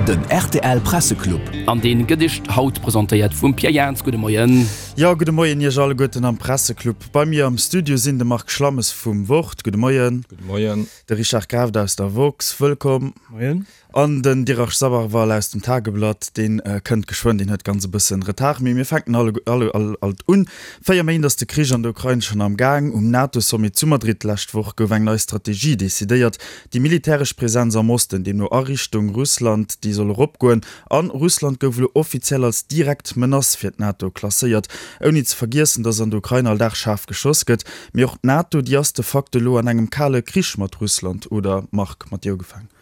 Den rtl Presseclub. An deen gëtt iech haut presentéiert vum Pierre Jans. Gudde Moien. Jo, gudde Moien iech alleguerten am Presseclub. Bei mir am Studio sinn de Marc Schlammes vum Wort, gudde Moien. Gudde Moien. De Richard Grafft aus der Woxx, wëllkomm. Moien. An den Dirac Sabharwal aus dem Tageblatt, dee kënnt geschwënn, deen huet ganz e bëssen Retard, mee mir fänken alle alt un. 4 Méint ass de Krich an der Ukrain schonn am Gaang. Um NATO-Sommet zu Madrid d'lescht Woch gouf eng nei Strategie decidéiert. Déi militäresch Presenz am Osten, deemno a Richtung Russland, déi soll eropgoen. An Russland gouf elo offiziell als direkt Menace fir d'NATO klasséiert. Ouni ze vergiessen, datt an der Ukrain all Dag schaarf geschoss gëtt. Mee och d'NATO, déi ass de facto elo an engem kale Krich mat Russland, oder Marc, mat dir ugefaangen?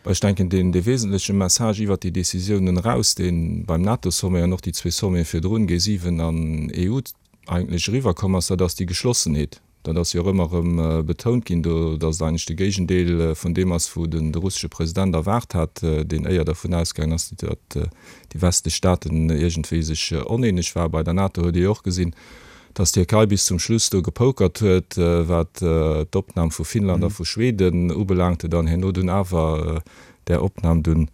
Ech denken, deen dee wesentleche Message iwwert déi Décisiounen eraus, dee beim NATO-Sommet an och déi zwee Sommete virdrun, G7 an EU, eigentlech eriwwerkomm ass, dat ass déi Geschlossenheet. Dat ass jo och ëmmer erëm betount ginn do, datt et eigentlech de Géigendeel vun deem ass, wou den de russesche President erwaart hat, deen éier dervun ausgaangen ass, datt déi westlech Staaten iergendwéi sech oneeneg waren. Bei der NATO huet ee jo och gesinn, Dass d'Tierkei bis zum Schluss do gepokert huet, wat d'Opnam vu Finnland a vu Schweden ubelaangte, dann herno dunn awer där Opnam dunn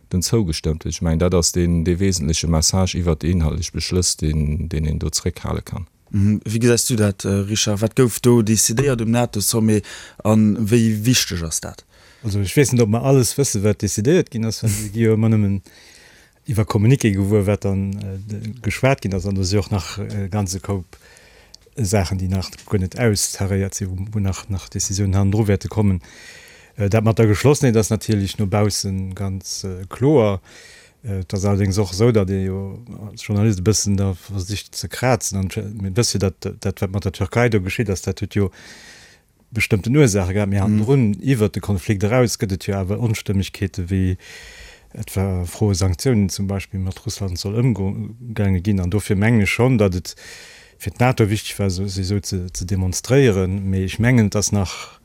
dunn zougestëmmt huet. Ech mengen, dat ass deen dee wesentleche Message iwwert déi inhaltlech Beschlëss, deen deen een do zréckhale kann. Wéi gesäis du dat, Richard? Wat gouf do decidéiert um NATO-Sommet a wéi wichteg ass dat? Also ech weess net, ob mer alles wëssen, wat decidéiert ginn ass, well mir gi jo ëmmer nëmmen iwwer Communiqué gewuer, wat dann geschwat ginn ass. An do si och nach e ganze Koup Saachen, déi nach guer net austaréiert sinn, wou nach nach Décisiounen hannendru wäerte kommen. Dat mat der Geschlossenheet ass natierlech no bausse ganz kloer. Et ass allerdéngs och esou, datt ee jo als Journalist e bëssen da versicht ze krazen. An mir wësse jo, datt dat, wat mat der Türkei do geschitt ass, dat huet jo bestëmmten Ursaache gehat, mee hannendrun, iwwert de Konflikt eraus, gëtt et jo awer Onstëmmegkeete wéi etwa Froe Sanktiounen zum Beispill mat Russland soll ëmgaange ginn. An dofir mengen ech schonn, datt et fir d'NATO wichteg war, sech esou ze demonstréieren. Mee ech mengen, et ass nach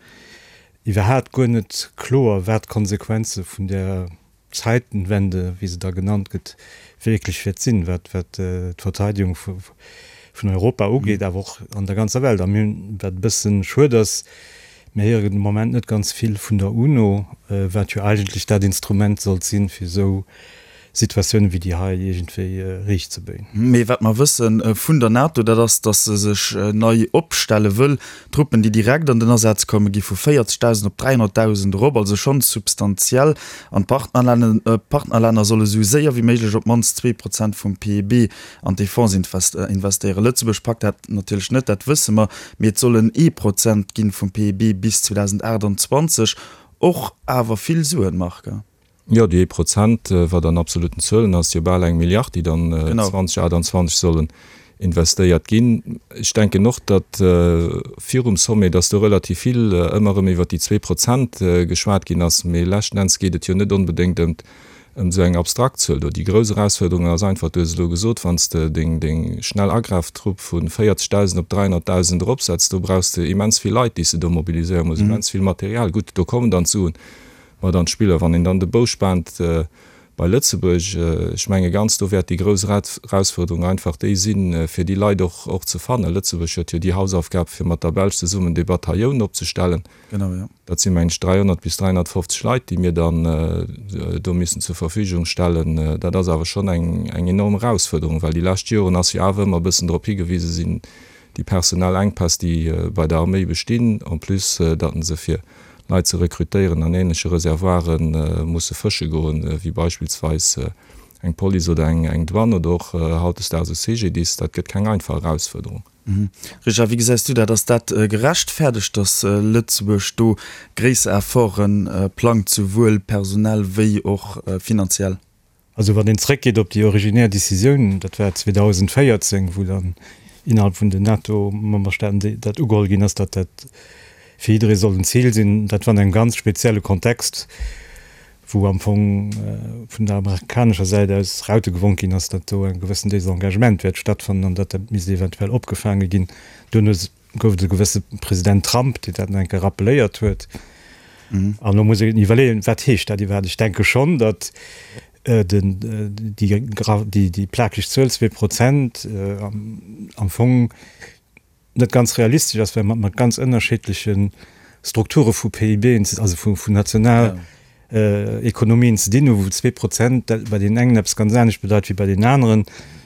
iwwerhaat guer net kloer, wat d'Konsequenze vun där Zeitenwende, wéi se da genannt gëtt, wierklech wäert sinn, wat d'Verteidigung vun Europa ugeet, awer och an der ganzer Welt. A mir hunn, wat e bësse schued ass, mir héieren de Moment net ganz vill vun der UNO, wat jo eigentlech dat Instrument sollt sinn, fir esou Situatiounen wéi déi hei iergendwéi riichtzebéien. Mee wat mer wësse vun der NATO, dat ass, datt se sech nei opstelle wëll. D'Truppen, déi direkt an den Asaz kommen, gi vu 40.000 op 300.000 erop, also schonn substantiell. An d'Partnerlänner solle sou séier wéi méiglech op d'mannst 2 Prozent vum PIB an d'Defense investéieren. Lëtzebuerg packt dat natierlech net, dat wësse mer, mee et sollen ee Prozent ginn vum PIB bis 2028. Och awer vill Suen, Marc. Jo, déi ee Prozent, wat an absoluten Zuelen ass jo bal eng Milliard, déi dann 2028 sollen investéiert ginn. Ech denken och, datt virum Sommet, datt do relativ vill ëmmer erëm iwwert déi 2% geschwat ginn ass, mee leschten Enns geet et jo net onbedéngt ëm ëm esou eng abstrakt Zuel do. Déi grouss Erausfuerderung ass einfach, du hues et elo gesot, wann s de deng deng schnell Agraftrupp vu 40.000 op 300.000 eropsetz, do brauchs de immens vill Leit, déi s de do mobiliséiere muss, immens vill Material. Gutt, do kommen dann d'Suen mat an d'Spill. A wann een dann de Bou spaant bei Lëtzebuerg, ech menge ganz, do wäert déi grouss Erausfuerderung einfach déi sinn, fir déi Leit och och ze fannen. Lëtzebuerg huet jo déi Hausaufgab, fir mat der Belsch zesummen dee Batailloun opzestellen. Dat si meng ech 300 bis 350 Leit, déi mir dann do missen zur Verfügung stellen. Dat ass awer schonn eng eng enorm Erausfuerderung, well déi lescht Joren ass jo awer ëmmer e bëssen drop higewise sinn, déi personell Enkpäss, déi bei der Arméi bestinn, en plus datt se fir Leit ze rekrutéieren an ähnleche Reservoire musse fësche goen, wéi beispillsweis eng Police oder eng Douane oder och hautdesdaags e CGDIS. Dat gëtt keng einfach Erausfuerderung. Richard, wéi gesäis du dat? Ass dat gerechtfäerdegt, datt Lëtzebuerg do gréisser Efforte plangt, souwuel personell wéi och finanziell? Also wann een zréckgeet op déi originär Décisioun, dat war 2014, wou dann innerhalb vun den NATO-Memberstaaten dat ugeholl ginn ass, datt dat fir jidderee soll en Zil sinn, dat war an engem ganz spezielle Kontext, wou am Fong vun der amerikanescher Säit aus Raute gewonk ginn ass, datt do e gewëssen Désengagement wäert stattfannen an datt dat misst eventuell opgefaange ginn. Duerno gouf et e gewësse President Trump, deen dat nach eng Kéier rappeléiert huet. An elo muss een iwwerleeën, wat heescht dat iwwerhaapt? Ech denke schonn, datt déi plakeg Zuel 2% am Fong net ganz realistesch ass, well mer mat ganz ënnerschiddleche Strukture vu PIBen, also vun national. Ekonomien ze dinn hunn, wou 2% bei deenen engen eppes ganz anescht bedeit wéi bei deenen aneren.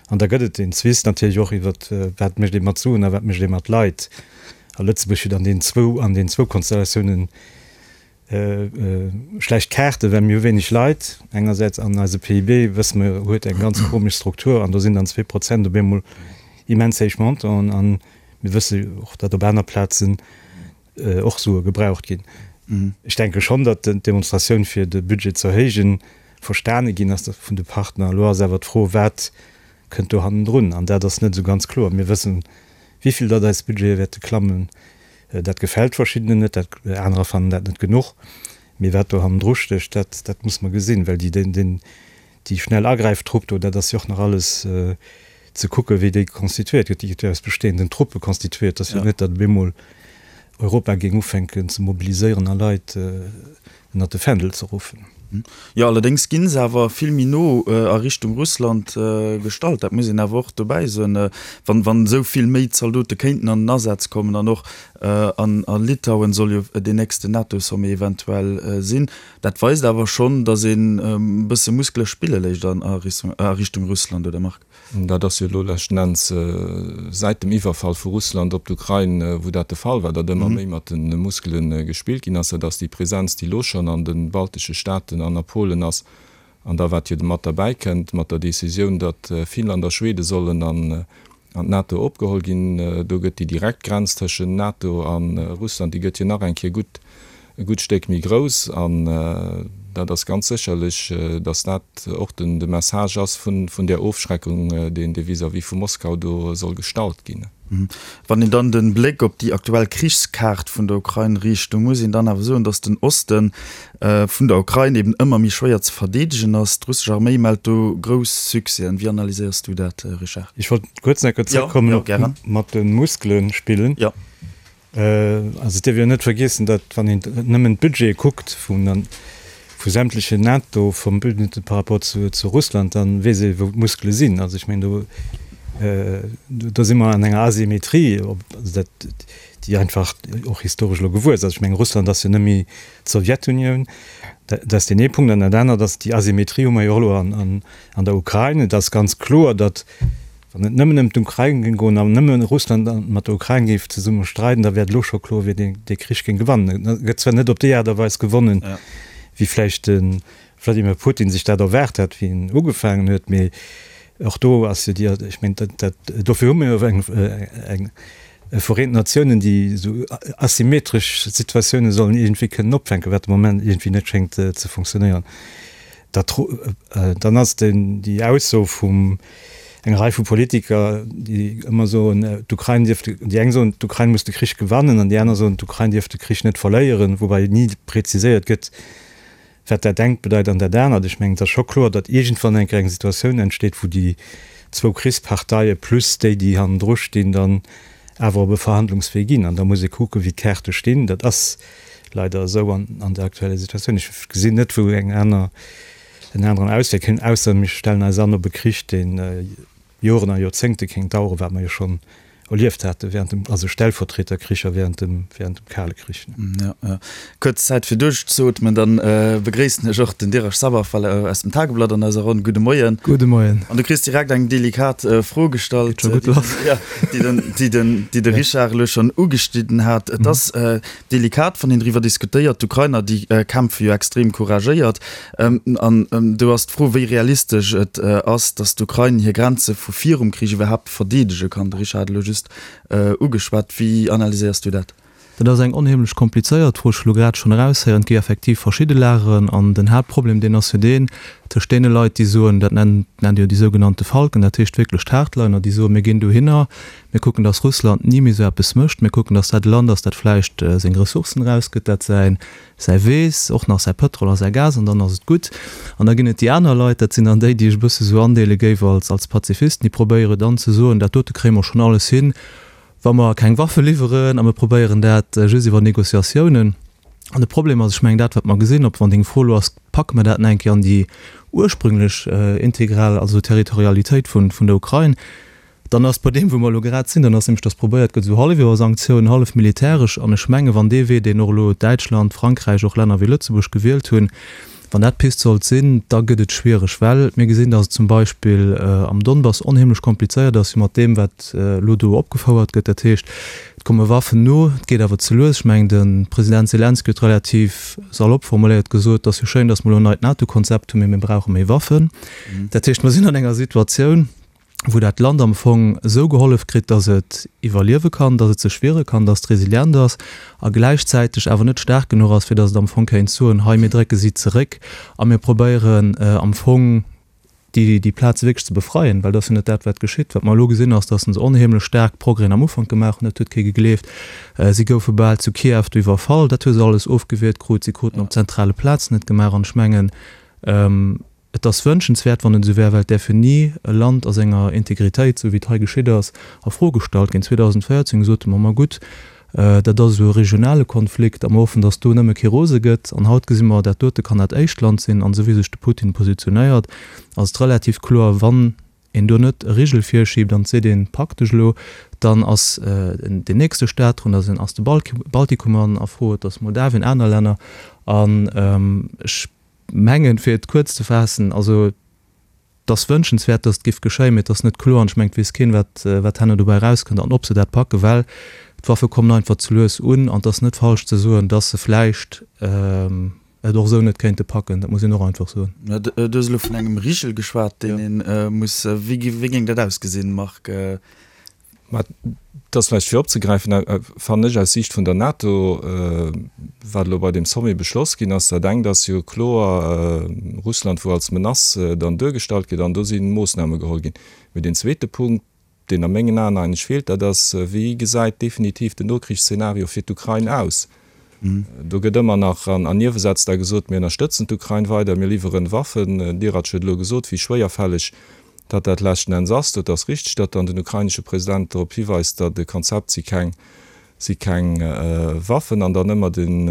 An da gëtt et deen Zwist natierlech och iwwer, wat mécht ee mat Suen a wat mécht ee mat Leit. A Lëtzebuerg huet an deenen zwou, an deenen zwou Konstellatiounen schlecht Kaarten, well mir hu wéineg Leit engersäits an eise PIB, wësse mer, huet eng ganz komesch Struktur an do sinn dann 2% op eemol immens héich Montanten. A mir wësse och, datt op aner Plazen och Sue gebraucht ginn. Ech denke schonn, datt d'Demonstratioun fir de Budget ze erhéijen verstane ginn ass vun de Partner. Elo ass awer d'Fro, wat kënnt do hannendrun? An dat ass net esou ganz kloer. Mir wëssen, wéi vill datt eis Budgete wäerte klammen. Dat gefält verschiddenen net, dat anerer fannen dat net genuch. Mee wat do hannendru stécht, dat dat muss mer gesinn, well déi den déi schnell Agräiftrupp do, dat ass jo och nach alles ze kucken, wéi déi constituéiert gëtt. Déi gëtt jo aus bestehenden Truppe constituéiert. Et ass jo net, datt op eemol Europa géing ufänken ze mobiliséieren a Leit ënnert de Fändel ze ruffen. Jo, allerdéngs gi se awer vill méi no a Richtung Russland gestallt. Dat muss een awer och dobäi soen. Wann, wann esou vill méi Zaldote kéinten an den Asaz kommen an och an a Litauen soll jo deen nächsten NATO-Sommet eventuell sinn, dat weist awer schonn, datt een e bësse Muskele spille léisst an a Richtung Russland, oder Marc? Dat ass jo elo leschten Enns säit dem Iwwerfall vu Russland op d'Ukrain, wou dat de Fall war, datt ëmmer méi mat de Muskele gespillt ginn ass. Dat ass déi Presenz, déi elo schonn an de baltesche Staaten an a Polen ass. An da wat jo mat derbäi kënnt, mat der Decisioun, datt Finnland a Schwede sollen an d'NATO opgeholl ginn, do gëtt déi direkt Grenz tëschent NATO a Russland, déi gëtt jo nach eng Kéier gutt e gutt Stéck méi grouss. An dat ass ganz sécherlech, datt dat och den de Message ass vun vun där Ofschreckung, deen dee vis-à-vis vu Moskau do soll gestallt ginn. Wann een dann de Bléck op déi aktuell Krichskaart vun der Ukrain riicht, do muss een dann awer soen, datt den Oste vun der Ukrain eben ëmmer méi schwéier ze verdeedegen ass. D'russesch Arméi mellt do grouss Succèsen. Wéi analyséiers du dat, Richard? Ech wollt kuerz nach zréckkommen op mat de Muskele spillen. Also et dierf een jo net vergiessen, datt wann een nëmmen d'Budgete kuckt vun vu sämtlechen NATO-Verbündete par rapport zu zu Russland, da weess ee wou d'Muskele sinn. Also ech mengen do do si mer an enger Asymmetrie, also dat déi einfach och historesch elo gewuess ass. Ech mengen Russland ass jo net méi d'Sowjetunioun. Dat ass deen ee Punkt. An dat anert ass, déi Asymmetrie hu mer jo och elo an an der Ukrain. Et ass ganz kloer, datt Wann et nëmmen ëm d'Ukrain géing goen an nëmme Russland mat der Ukrain géif zesumme streiden, da wär et elo scho kloer, wien dee dee Krich géing gewannen. Et gëtt zwar net op déi Aart a Weis gewonnen, wéi vläicht de Wladimir Putin sech dat erwaart hat, wéi en ugefaangen huet, mee och do ass jo déi, ech mengen, dat, dat, dofir hu mir jo eng, eng Vereenten Natiounen, déi esou asymmetresch Situatioune sollen iergendwéi kënnen opfänken, wat de Moment iergendwéi net schéngt ze funktionéieren. Dat, dann ass den, déi Ausso vum enger Rei vu Politiker, déi ëmmer soen, d'Ukrain dierf, déi eng soen, d'Ukrain muss de Krich gewannen an déi aner soen, d'Ukrain dierf de Krich net verléieren, woubäi ni präziséiert gëtt, wat dat engt bedeit an dat anert. Ech mengen, et ass scho kloer, datt iergendwann eng Kéier eng Situatioun entsteet, wou déi zwou Krichsparteie plus déi, déi hannendru stinn, dann awer op e Verhandlungswee ginn. An da muss ee kucken, wéi d'Kaarte stinn. Dat ass leider esou an der aktueller Situatioun. Ech gesinn net, wou eng aner, en aneren Auswee kéint, ausser mir stellen eis an op e Krich, dee Joren a Joerzéngte kéint daueren, wat mer jo schonn erlieft hate während dem, also Stellvertreterkricher während dem, während dem Kale Krich. Jo, jo. Kuerz Zäit fir duerchzeootmen, dann begréissen ech och den Dirac Sabarfal aus dem Tageblatt an eiser Ronn. Gudde Moien. Gudde Moien. An du kriss direkt eng delikat Fro gestallt, Geet scho gutt lass. déi den, déi den, déi de Richard elo schonn ugeschnidden hat. Et ass delikat, wann een driwwer diskutéiert. D'Ukrainer, déi kämpfe jo extrem couragéiert. An do ass d'Fro, wéi realistesch et ass, datt d'Ukrain hir Grenze vu virum Krich iwwerhaapt verdeedege kann. De Richard hat elo just ugeschwat. Wéi analyséiers du dat? Dat ass eng onheemlech komplizéiert Fro. Ech hu lo grad schonn eraushéieren, et gi effektiv verschidde Lageren. An den Haaptproblem, deen ass jo deen tëscht deene Leit, déi soen, dat nennt Dir jo déi sougenannte Falken, dat heescht wierklech d'Hardliner, déi soen, mir ginn dohinner, mir kucken, datt Russland ni méi esou eppes mécht, mir kucken, datt dat e Land ass, dat vläicht seng Ressourcen erausgëtt, dat säin säi Weess, och nach säi Pëtrol a säi Gas an dann ass et gutt. An da ginn et déi aner Leit, dat sinn dann déi, déi ech e bësse sou andeele géif als als Pazifisten, déi probéiere dann ze soen, dat dote kréie mer schonn alles hin, wa mer keng Waffe liwweren a mir probéieren dat just iwwer Négociatiounen. An de Problem ass, ech mengen dat wat mer gesinn, ob wann deng Fro elo ass, packe mer dat nach eng Kéier an déi ursprünglech integral, also Territorialitéit vun vun der Ukrain? Dann ass bei deem, wou mer elo grad sinn, dann ass nämlech, dass probéiert gëtt, esou hallef iwwer Sanktiounen, hallef militäresch. An ech mengen, wann dee Wee, deen och elo Däitschland, Frankräich, och Länner wéi Lëtzebuerg gewielt hunn, wann dat d'Pist sollt sinn, da gëtt et schwiereg, well mir gesinn, dass et zum Beispill am Donbass onheemlech komplizéiert ass, jo mat deem, wat elo do opgefouert gëtt. Dat heescht, et komme Waffen no, et geet awer ze lues. Ech mengen, de President Selenskyj huet relativ salopp formuléiert gesot, et ass jo schéin, dass mer elo en neit NATO-Konzept hunn, mee mir brauche méi Waffen. Dat heescht, mer sinn an enger Situatioun, wou dat Land am Fong esou gehollef kritt, dass et iwwerliewe kann, dass et sech wiere kann, dass et resilient ass a gläichzäiteg awer net staark genuch ass, fir dass et am Fong kéint soen, hei mir drécke si zeréck a mir probéieren am Fong déi déi Plaze wierklech ze befreien, well dat ass jo net dat wat geschitt. Wat mer elo gesinn ass, dass se onheemlech staark Progrèsen am Ufank gemaach hunn, dat huet kee gegleeft. Si goufe bal zu Kiew do iwwerfall, dat hu se alles ofgewiert krut, si kruten op zentrale Plazen net gemaach an ech mengen, Et ass wënschenswäert, wann et esou wär, well et däerf jo ni e Land a senger Integritéit, esou wéi et hei geschitt ass, a Fro gestallt ginn. 2014 sote mer, ma gutt, dat ass esou e regionale Konflikt a mer hoffen, datt do nëmme kee rose gëtt. An haut gesi mer, dat dote kann dat éischt Land sinn. An esou wéi sech de Putin positionéiert, ass et relativ kloer, wann een do net e Rigel virschiibt an et seet een, Pak dech elo, dann ass deen nächste Staat drun, da ass de Baltikum a Fro, et ass Moldawien, aner Länner. An ech Mengen, fir et kuerz ze faassen, also et ass wënschenswäert, datt et géif geschéien, mee et ass net kloer an ech mengen, et weess keen, wat, wat herno dobäi erauskënnt an ob se dat packen, well d'Waffe kommen einfach ze lues un an et ass net falsch ze soen, datt se vläicht et och esou net kéinte packen. Dat muss een och einfach soen. Du hues elo vun engem Rigel geschwat, deen ee muss, wéi géing dat ausgesinn, Marc? Mä et ass vläicht fir opzegräifen, fannen ech aus Siicht vun der NATO, wat elo bei deem Sommet beschloss ginn ass. Dat engt ass jo kloer Russland, wou als Menace dann duergestallt gëtt, an do si Moossname geholl ginn. Mee deen zweete Punkt, deen a mengen Aen eigentlech feelt, dat ass, Wéi gesäit definitiv den Nokrichsszenario fir d'Ukrain aus? Do gëtt ëmmer nach an Niewesätz da gesot, mir ënnerstëtzen d'Ukrain weider, mir liwweren Waffen. Den Dirac huet elo gesot, wéi schwéierfälleg datt dat leschten Enns ass. Dat ass richteg, datt dann den ukrainesche President drop hiweist, datt e Konzept si keng si keng Waffen an dann ëmmer den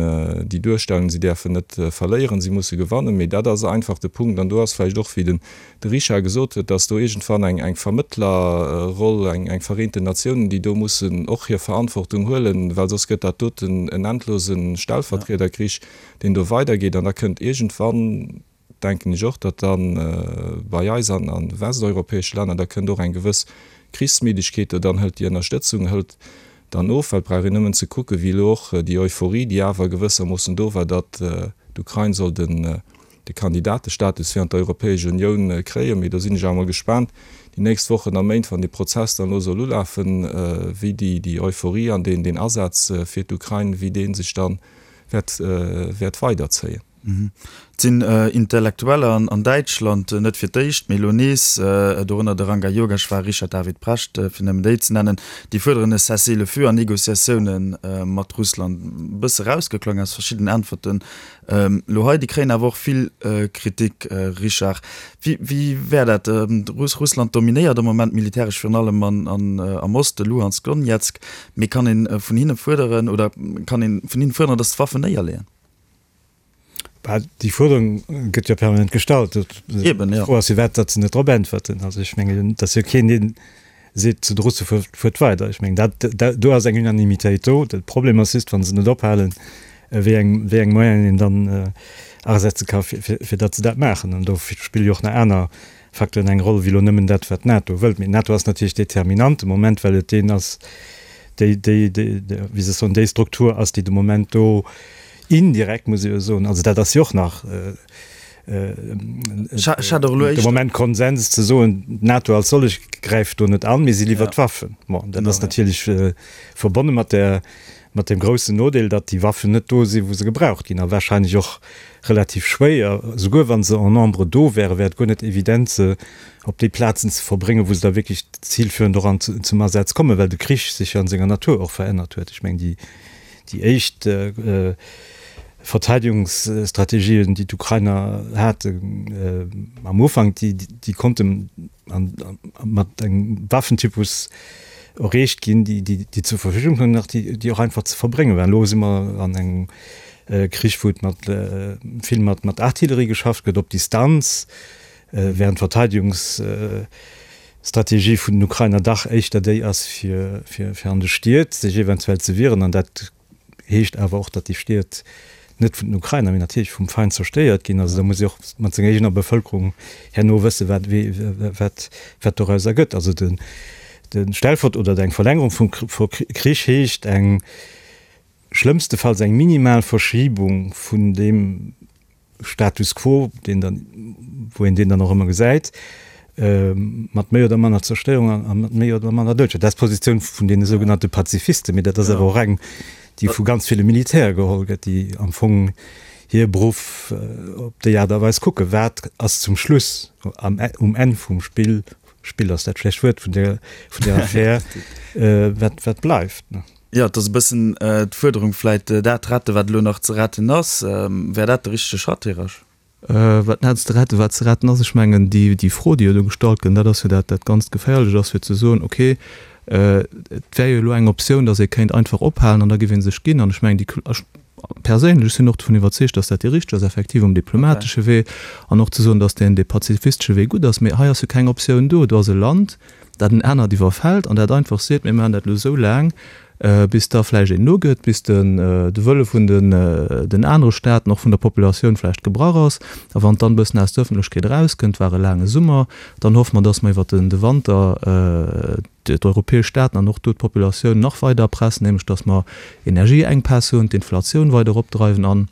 déi Duerstellung, si däerfen net verléieren, si musse gewannen. Mee dat ass einfach de Punkt an do ass vläicht och, wéi den de Richard gesot huet, dass do iergendwann eng eng Vermëttlerroll, eng eng Vereenten Natiounen, déi do mussen och hir Verantwortung huelen, well soss gëtt dat doten en endlose Stellvertriederkrich, deen do weidergeet. An da kënnt iergendwann, denken ech och, datt da bei eis an a westeuropäesche Länner, da kënnt och eng gewëss Krichsmiddegkeet do, dann hëlt déi Ënnerstëtzung hëlt dann of, well et brauch een nëmmen ze kucken, wéi elo och déi Euphorie, déi awer gewëssermoossen do war, datt d'Ukrain soll den de Kandidatestatus fir an d'Europäesch Unioun kréien. Mee do sinn ech awer mol gespaant, déi nächst Wochen a Méint, wann dee Prozess dann elo soll ulafen, wéi déi déi Euphorie an deen deen Asaz fir d'Ukrain, wéi dee sech dann wäert wäert weiderzéien. Et sinn Intellektueller an Däitschland, net fir d'éischt, mee elo nees, dorënner de Ranga Yogeshwar, Richard David Precht, fir nëmmen déi ze nennen, déi fuerderen e Cessez-le-feu an Negociatioune mat Russland. E bësse rausgeklongen aus verschiddenen Äntwerten Elo hei, déi kréien awer och vill Kritik, Richard. Wéi wär dat? Russland dominéiert am Moment militäresch virun allem am Oste, Luhansk, Donezk. Mee kann ee vun hinne fuerderen oder kann ee vun hinnen fuerderen, datt se d'Waffen néierleeën? Bah, déi Fuerderung gëtt jo permanent gestallt. Eben, jo. D'Fro ass, firwat datt se net drop äntwerten. Also ech mengen, et ass jo keen, deen seet zu de Russe, fuert weider. Ech mengen, dat, dat, do ass eng Unanimitéit do. De Problem ass just, wa se net ophalen, wéi eng, wéi eng Moyenen een dann asetze ka fir, fir, fir datt se dat maachen. An do spille jo och nach aner Facteuren eng Roll wéi elo nëmmen dat, wat d'NATO wëllt. Mee d'NATO ass natierlech determinant de Moment, well et deen ass, déi, déi, déi, wéi soll ech soen, déi Struktur ass, déi de Moment do indirekt, muss ee jo soen, also dat ass jo och nach, de Moment Konsens ze soen, d'NATO als sollech gräift do net an, mee si liwwert Waffen. Bon, dat ass natierlech verbonne mat der, mat deem groussen Nodeel, datt déi Waffen net do sinn, wou se gebraucht ginn, a wahrscheinlech och relativ schwéier, souguer wa se en nombre do wären, wär et guer net evident, se op déi Plazen ze verbréngen, wou se da wierklech zilführend och an zum Asaz kommen, well de Krich sech jo an senger Natur och verännert huet. Ech mengen, déi Déi éischt Verteidigungsstrategien, déi d'Ukrainer haten am Ufank, déi konnte mat engem Waffentypus erreecht ginn, déi zur Verfügung stoungen, nach déi och einfach ze verbrénge waren. Elo si mer an engem Krich, wou et mat vill mat Artillerie geschafft gëtt, op Distanz, während d'Verteidigungs. Strategie vun den Ukrainer dach éischter déi ass, fir, fir, fir an de Stied sech eventuell ze wieren. An dat heescht awer och, datt déi Stied net vun den Ukrainer, mee natierlech vum Feind zerstéiert ginn. Also da muss ee och mat senger eegener Bevëlkerung herno wëssen, wat, wat, wat doraus ergëtt. Also de, de Stellvert oder eng Verlängerung vum Krich heescht eng, schlëmmstefalls eng minimal Verschibung vun deem Status quo, deen dann, wou een deen dann och ëmmer gesäit, mat méi oder manner Zerstéierung a mat méi oder manner Doudescher. Dat ass d'Positioun vun deene sougenannte Pazifisten, mee dat ass awer och eng, déi vu ganz ville Militäre geholl gëtt, déi am Fong hir Beruff op déi Aart a Weis kucken, Wat ass zum Schluss am, um Enn vum Spill, Spill ass dat schlecht Wuert, vun där, vun där Affär, wat, wat bleift? Jo, et ass e bëssen d'Fuerderung vläit, dat rette wat elo nach ze retten ass. Wär dat de richtege Schratt, Här Rasch? Wat net ze retten, wat ze retten ass, ech mengen déi déi Fro, déi jo do gestallt gëtt, dat ass jo dat dat ganzt Geféierlecht ass, fir ze soen, okay, et wär jo elo eng Optioun, datt ee kéint einfach ophalen an da géif ee sech ginn. An ech mengen déi, ech perséinlech sinn och dovun iwwerzeegt, datt dat déi richteg ass, effektiv um diplomatesche Wee an och ze soen, datt deen dee pazifistesche Wee gutt ass. Mee hei ass jo keng Optioun do. Do ass e Land, dat en anert iwwerfält an dat einfach seet, mir maachen dat elo esou laang, bis da vläicht een nogëtt, bis den de Wëlle vun den den anere Staaten, och vun der Populatioun vläicht gebrach ass. A wann et dann e bëssen aus der Ëffentlechkeet erauskënnt, war e laange Summer, dann hoffe mer, dass mer iwwert den de Wanter d'europäesch Staaten an och do d'Populatioun nach weider erpressen, nämlech dass mer Energieenkpäss hunn, d'Inflatioun weider eropdreiwen an,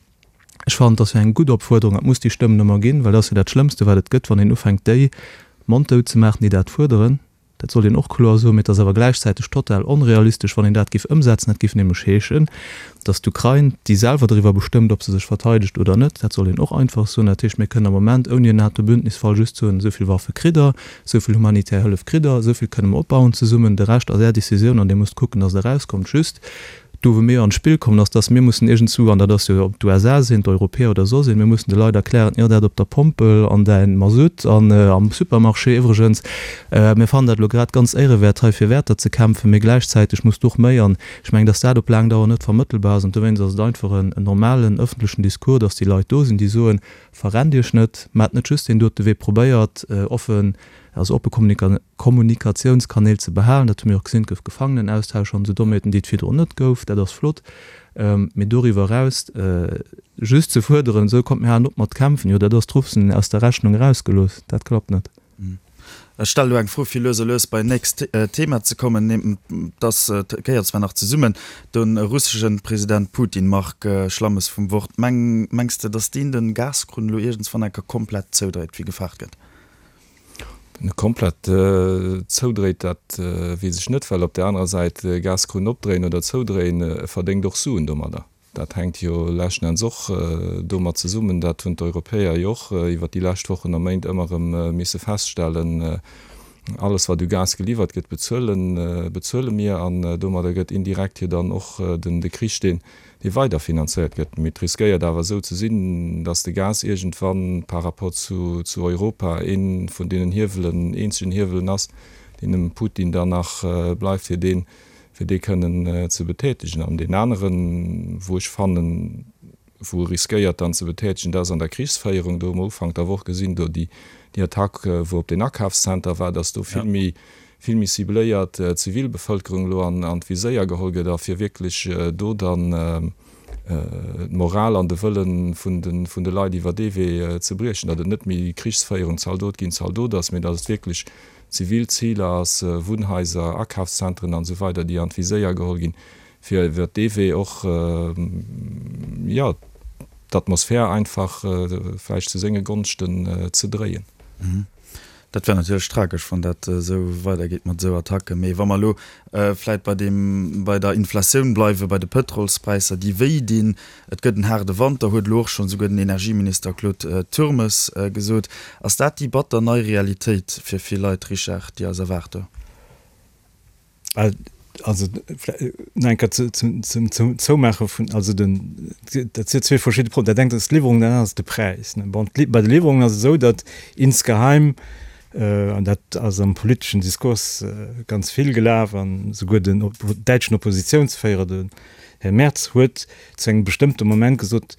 Ech fannen, et ass jo eng gutt Opfuerderung, et muss déi Stëmmen ëmmer ginn, well dat ass jo dat Schlëmmste, wat et gëtt, wann een ufänkt, déi monddout ze maachen, déi dat fuerderen. Dat sollt een och kloer soen. Mee et ass awer gläichzäiteg total onrealistesch, wann een dat géif ëmsetzen. Dat géif nämlech heeschen, datt d'Ukrain, déi selwer doriwwer bestëmmt, ob se sech verteidegt oder net, dat soll een och einfach soen, dat heescht, mir kënnen am Moment ouni en NATO-Bündnisfall just soen, esou vill Waffe kritt Der, esou vill humanitär Hëllef kritt Der, esou vill kënne mer opbauen zesummen, de Rescht ass Är Decisioun an Dir musst kucken, datt Der erauskommt. Just, Do wou mir jo an d'Spill kommen, ass, dass mir mussen iergendzwou, an dat ass jo, ob d'USA sinn, d'Europäer oder soss een, mir mussen de Leit erklären, jo dat op der Pompel an däin Masutt an am Supermarché iwwregens, mir fannen dat elo grad ganz éierewäert hei fir Wäerter ze kämpfen, mee gläichzäiteg muss du och méi. An ech mengen, dass dat op laang Dauer net vermëttelbar ass. An dowéinst ass et einfach en normalen ëffentlechen Discours, dass déi Leit do sinn, déi soen, Verrennt Iech net, maacht net just deen dote Wee, probéiert offen, also oppe Kommunikatiounskanäl ze behalen. Dat hu mir och gesinn, et gouf Gefangenenaustausch an esou Dommheeten, déi et virdrun net gouf. Dat ass flott. Mee doriwwer eraus just ze fuerderen, esou kommt mir halen op mat kämpfen, jo dat ass d'Russen aus der Rechnung erausgelooss. Dat klappt net. Ech stelle elo eng Fro, fir lues a lues bei nächst Thema ze kommen. Dass gehéiert zwar nach zesummen, de russesche President Putin, Marc Schlammes vum Wort, mengs de, dass deen de Gaskrunn elo iergendswann eng Kéier komplett zoudréit, wéi gefaart gëtt? Komplett zoudréit, dat weess ech net, well op där anerer Säit, Gaskrunn opdréien oder zoudréien, e verdéngt och Suen domadder. Dat hänkt jo leschten Enns och domat zesummen, dat hunn d'Europäer jo och iwwert déi lescht Wochen a Méint ëmmer erëm misse feststellen, Alles wat u Gas geliwwert gëtt, bezuelen, bezuele mir. An domadder gëtt indirekt jo dann och den de Krich, deen, dee weider finanzéiert gëtt. Mee et riskéiert awer esou ze sinn, datt de Gas iergendwann par rapport zu, zu Europa ee vun deenen Hiewelen, eenzegen Hiewelen ass, deen dem Putin dann nach bleift, fir deen, fir dee kënnen ze betätegen. An deen aneren, wou ech fannen, wou e riskéiert dann ze betätegen, dat ass an der Krichsféierung. Do hu mer Ufank der Woch gesinn, do déi Attack, wou op deen Akafszenter war, datt do vill méi, vill méi cibléiert d'Zivilbevëlkerung elo an d'Viséier geholl gëtt a fir wierklech do dann d'Moral an de Wëlle vun de Leit iwwer dee Wee ze briechen, datt et net méi Krichsféierung, Zaldot géint Zaldot ass, mee datt et wierklech zivil Ziler ass, Wunnhaiser, Akafszentren an esou weider, déi an d'Viséier geholl ginn, fir iwwer dee Wee och, jo, d'Atmosphär einfach vläicht zu senge Gonschten ze dréien. Dat wär natierlech tragesch, wann dat esou weidergeet mat esou Attacken. Mee wa mer elo vläit bei deem, bei der Inflatioun bleiwen, bei de Pëtrolspräisser, déi wéi dinn, et gëtt en haarde Wanter, huet elo och schonn esouguer den Energieminister Claude Turmes gesot. Ass dat déi batter nei Realitéit fir vill Leit, Richard, déi eis erwaart do? Also nach eng Kéier zum Zoumaache vun, also den, dat si zwee verschidde Problemer. Dat engt ass d'Liwwerung, dat anert ass de Präis. Bon, bei de Liwwerungen ass et esou, datt insgeheim, an dat ass am politeschen Diskurs ganz vill gelaf, an esouguer den däitschen Oppositiounsféierer, den Här Merz, huet zu engem bestëmmte Moment gesot.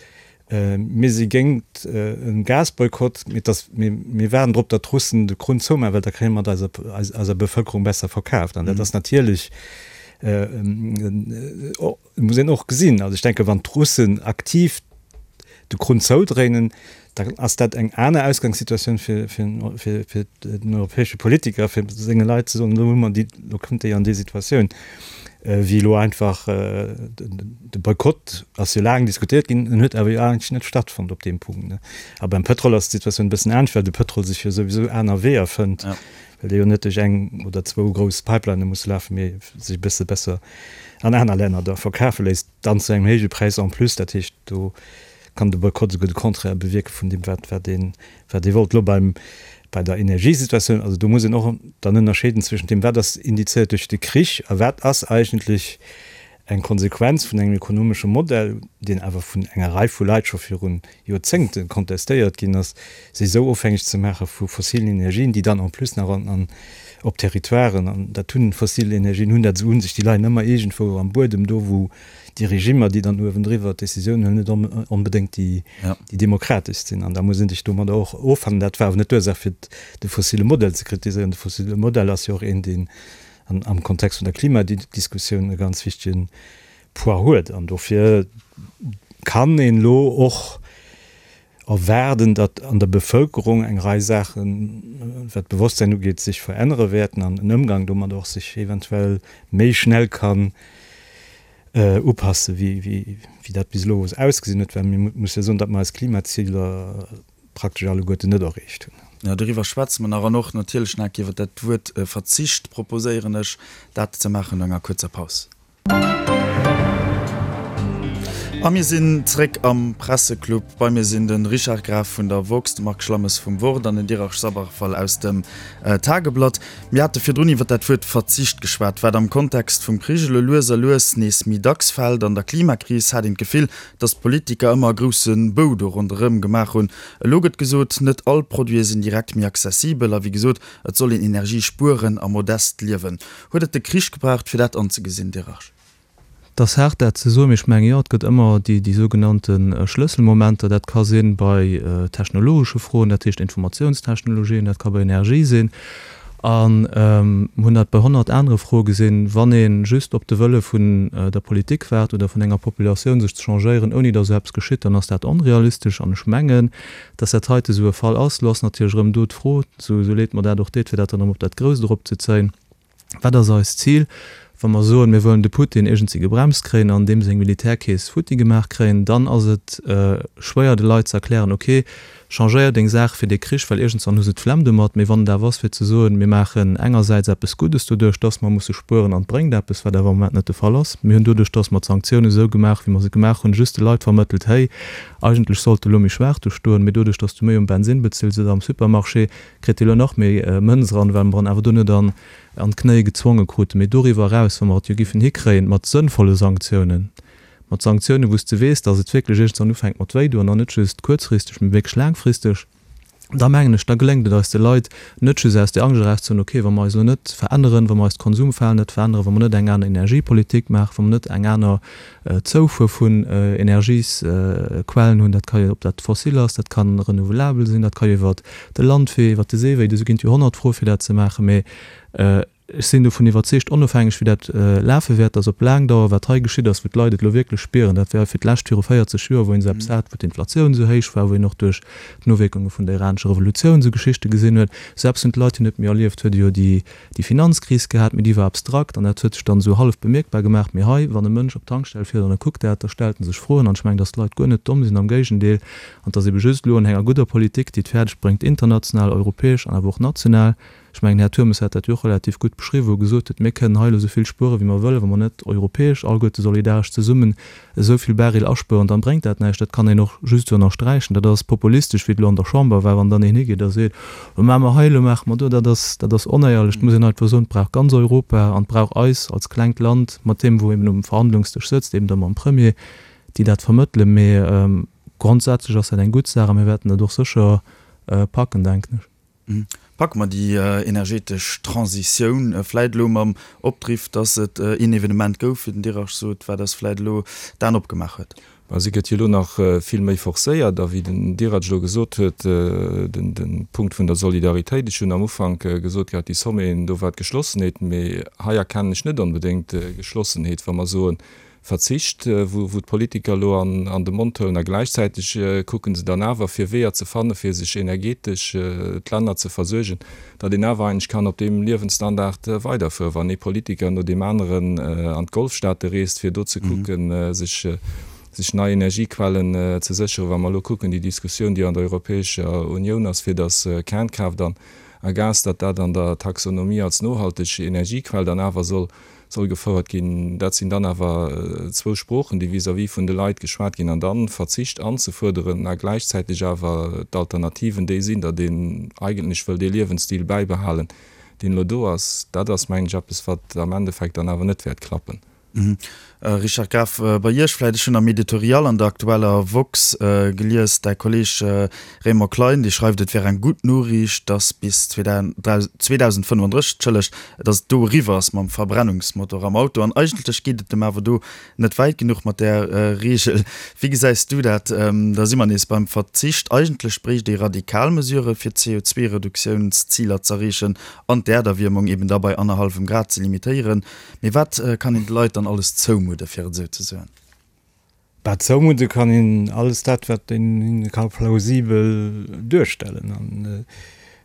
Mir si géingt e Gasboykott, mee dass, mir, mir waarden drop, datt d'Russen de Krunn zoumaachen, well da kréie mer et eiser, eiser Bevëlkerung besser verkaaft. An dat ass natierlech, muss een och gesinn. Also ech denke wann d'Russen aktiv de Krunn zoudréinen, da ass dat eng aner Ausgangssituatioun fir, fir, fir, fir den europäesche Politiker, fir senge Leit ze soen, elo hu mer déi, elo kënnt déi an déi Situatioun, wéi elo einfach de Boykott ass jo laang diskutéiert ginn, en huet awer jo eigentlech net stattfonnt op deem Punkt. A beim Pëtrol ass d'Situatioun e bëssen anescht, well de Pëtrol sech jo souwisou aner Weeër fënnt, well dee jo net duerch eng oder zwou grouss Pipelinne muss lafen, mee sech e bësse besser an aner Länner da verkafe léisst, dann zu engem héije Präis en plus. Dat heescht, do kann de Boykott esouguer de Contraire bewierke vun deem, wat, wat een, wat ee wollt. Elo beim, bei der Energiesituatioun, also do muss een och dann ënnerscheeden zwëschent deem, wat ass indizéiert duerch de Krich a wat ass eigentlech eng Konsequenz vun engem ekonomesche Modell, deen awer vun enger Rei vu Leit scho viru Joerzéngte kontestéiert ginn ass, sech esou ofhängeg ze maache vu fossilen Energien, déi dann en plus nach an op Territoiren, an dat hunn fossil Energien hunn dat esou un sech, déi leien ëmmer iergendwou am Buedem, do wou déi Regimmer, déi dann uewendriwwer d'Decisioun huelen, net onbedéngt déi demokrateschst sinn. An da muss ee sech domadder och offannen. Dat war awer net d'Ursaach fir de fossile Modell ze kritiséieren. De fossile Modell ass jo och een, deen am Kontext vun der Klimadiskussioun e ganz wichtege Poids huet. An dofir kann een elo och erwaarden, datt an der Bevëlkerung eng Rei Saachen, wat d'Bewosstsäin ugeet, sech verännere wäerten an den Ëmgang domat och sech eventuell méi schnell kann upasse wéi dat bis elo ausgesinn huet. Well mir musse jo soen, datt mer eis Klimaziler praktesch alleguerten net erreecht hunn. Jo, doriwwer schwätze mer nach an och natierlech nach iwwer dat Wuert Verzicht proposéieren ech, dat ze maachen no enger kuerzer Paus. A mir sinn zréck am Presseclub. Bei mir sinn de Richard Graf vun der woxx, de Marc Schlammes vum Wort an den Dirac Sabarfal aus dem Tageblatt. Mir hate virdrun iwwer dat Wuert Verzicht geschwat, wat am Kontext vum Krich elo lues a lues nees méi dacks fält. An der Klimakris hat een d'Gefill, datt d'Politiker ëmmer e grousse Bou do ronderëm gemaach hunn. Elo gëtt gesot, net all Produite sinn direkt méi accessibel a wéi gesot, et soll een Energie spueren a modest liewen. Huet et de Krich gebraucht, fir dat anzegesinn, Dirach? Et ass haart dat ze soen, mee ech mengen, jo, et gëtt ëmmer déi, déi sougenannte Schlësselmomenter. Dat ka si bei technologesche Froen, dat heescht Informatiounstechnologien, dat ka bei Energie sinn. A mir hunn dat bei 100 anere Froe gesinn, wann ee just op de Wëlle vun der Politik waart oder vun enger Populatioun, sech ze changéieren, ouni datt esou eppes geschitt, dann ass dat onrealistesch. An ech mengen, datt dat heite esou e Fall ass. Elo ass natierlech erëm do d'Fro, esou leed mer dat och deet, fir dat dann erëm op dat Grousst eropzezéien, Wat ass eist Zil, wa mer soen, mir wëllen de Putin iergendwéi gebremst kréien an deem seng Militärkeess futti gemaach kréien? Dann ass et schwéier de Leit ze erklären, ok, changéier deng Saach fir dee Krich, well iergendswann hu se d'Flemm domat. Mee wann et awer ass fir ze soen, mir maachen engersäits eppes Guddes doduerch, datt mer musse spueren an et bréngt eppes, wat awer am Moment net de Fall ass. Mir hunn doduerch, datt mer d'Sanktiounen esou gemaach, wéi mer se gemaach hunn, just de Leit vermëttelt, héi, eigentlech sollt de elo méi schwaach do stoen, mee doduerch, datt s du méi um Bensinn bezills oder am Supermarché, kritt elo nach méi Mënz eran, well mer en awer do net an d'Knéie gezwonge kruten. Mee doriwwer eraus, wa mer et jo giffen hikréien, mat sënnvolle Sanktiounen, mat Sanktiounen, wou s de weess, datt et wierklech iergendwann ufänkt mat wéidoen, an net just kuerzfristeg, mee wierklech laangfristeg, da mengen ech, da geléngt et eis de Leit net just aus där Angscht erauszehuelen, okay, wa mer eis elo net veränneren, wa mer eist Konsumverhalen net veränneren, wa mer net eng aner Energiepolitik maachen, wa mer net eng aner Zoufuer vun Energiesquellen hunn, dat ka jo, ob dat fossil ass, dat ka renouvelabel sinn, dat ka jo iwwert de Landwee, iwwert de Seewee, do ginn et jo 100 Froe fir dat ze maachen, mee ech sinn dovun iwwerzeegt, onofhängeg wéi dat lafe wäert, datt op laang Dauer, wat hei geschitt ass, wou d'Leit et elo wierklech spieren, dat war fir d'lescht viru 40 Joer, wou een esou eppes hat, wou d'Inflatioun esou héich war, wou een och duerch d'Nowierkunge vun der iranescher Revolutioun esou Geschichte gesinn huet, esou eppes hunn d'Leit jo net méi erlieft, huet ee jo déi déi Finanzkris gehat, mee déi war abstrakt an dat huet sech dann esou hallef bemierkbar gemaach. Mee hei, wann e Mënsch op d'Tankstell fiert an e kuckt dat, da stellt en sech Froen. An ech mengen, dass d'Leit guer net domm sinn, am Géigendeel. An et ass ebe just elo un enger gudder Politik, déi et fäerdeg bréngt, international, europäesch an awer och national, ech mengen, Här Turmes hat dat jo och relativ gutt beschriwwen, wou e gesot huet, mir kënnen hei elo esou vill spueren, wéi mer wëllen, wa mer net europäesch alleguerte solidaresch zesummen esou vill Baril aspueren, dann bréngt dat näischt. Dat kann een och just esou ënnersträichen. Dat ass populistesch, wéi et elo an der Chamber war, wann dann een higeet a seet, Lo maache mer hei, elo maache mer do. Dat ass, dat ass onéierlech. Et muss een einfach soen, et brauch ganz Europa an et brauch eis als klengt Land, mat deem, wou eben um Verhandlungsdësch sëtzt, eben da mam Premier, déi dat vermëttelen. Mee grondsätzlech ass dat eng gutt Saach a mir wäerten dat och sécher packen, denken ech. Packe mer déi energetesch Transitioun vläit elo mam Opdriff, dass et een Evenement gouf, wéi den Dirac sot, wat eis vläit elo d'Aen opgemaach huet? Mä se gëtt jo elo nach vill méi forcéiert. A wéi den Dirac elo gesot huet, de Punkt vun der Solidaritéit, ech hunn am Ufank gesot gehat, déi Sommeten, do war d'Geschlossenheet, mee hei erkennen ech net onbedéngt Geschlossenheet, wa mer soen, Verzicht, wou d'Politiker elo an de Mond huelen a gläichzäiteg kucke se dann awer fir Weeër ze fanne fir sech energetesch d'Länner ze versuergen, datt een awer eigentlech kann op deem Liewensstandard weiderfueren, wann ee Politiker no deem aneren an d'Golfstaate reest fir do ze kucken sech nei Energiequellen ze sécheren. Wa mer elo kucken déi Diskussioun déi an der Europäescher Unioun ass fir datt Kernkraaft an a Gas, datt dat an der Taxonomie als nohalteg Energiequell dann awer soll soll gefouert ginn. Dat sinn dann awer zwou Sproochen, déi vis-à-vis vun de Leit geschwat ginn. An dann Verzicht anzefuerderen a gläichzäiteg awer d'Alternativen déi sinn, datt een eigentlech wëll dee Liewensstil bäibehalen, deen elo do ass, dat ass, mengen ech, eppes, wat am Endeffekt dann awer net wäert klappen. Richard Graf, bei Iech vläicht, ech hunn am Editorial an der aktueller woxx gelies, däi Kolleeg Raymond Klein, dee schreift, et wär eng gutt Noriicht, datt bis 2035, entschëllegt, datt et do eriwwer ass mam Verbrennungsmotor am Auto. An eigentlech geet et em awer do net wäit genuch mat där Reegel. Wéi gesäis du dat? Da si mer nees beim Verzicht. Eigentlech bréicht ee radikal Mesurë fir d'CO2-Reduktiounsziler z'erreechen an d'Äerderwiermung eben da bei annerhallwem Grad ze limitéieren. Mee wat kann een de Leit dann alles zoumudde, fir et esou ze soen? Bah, zoumudde kann een alles dat, wat een hinne ka plausibel duerstellen. An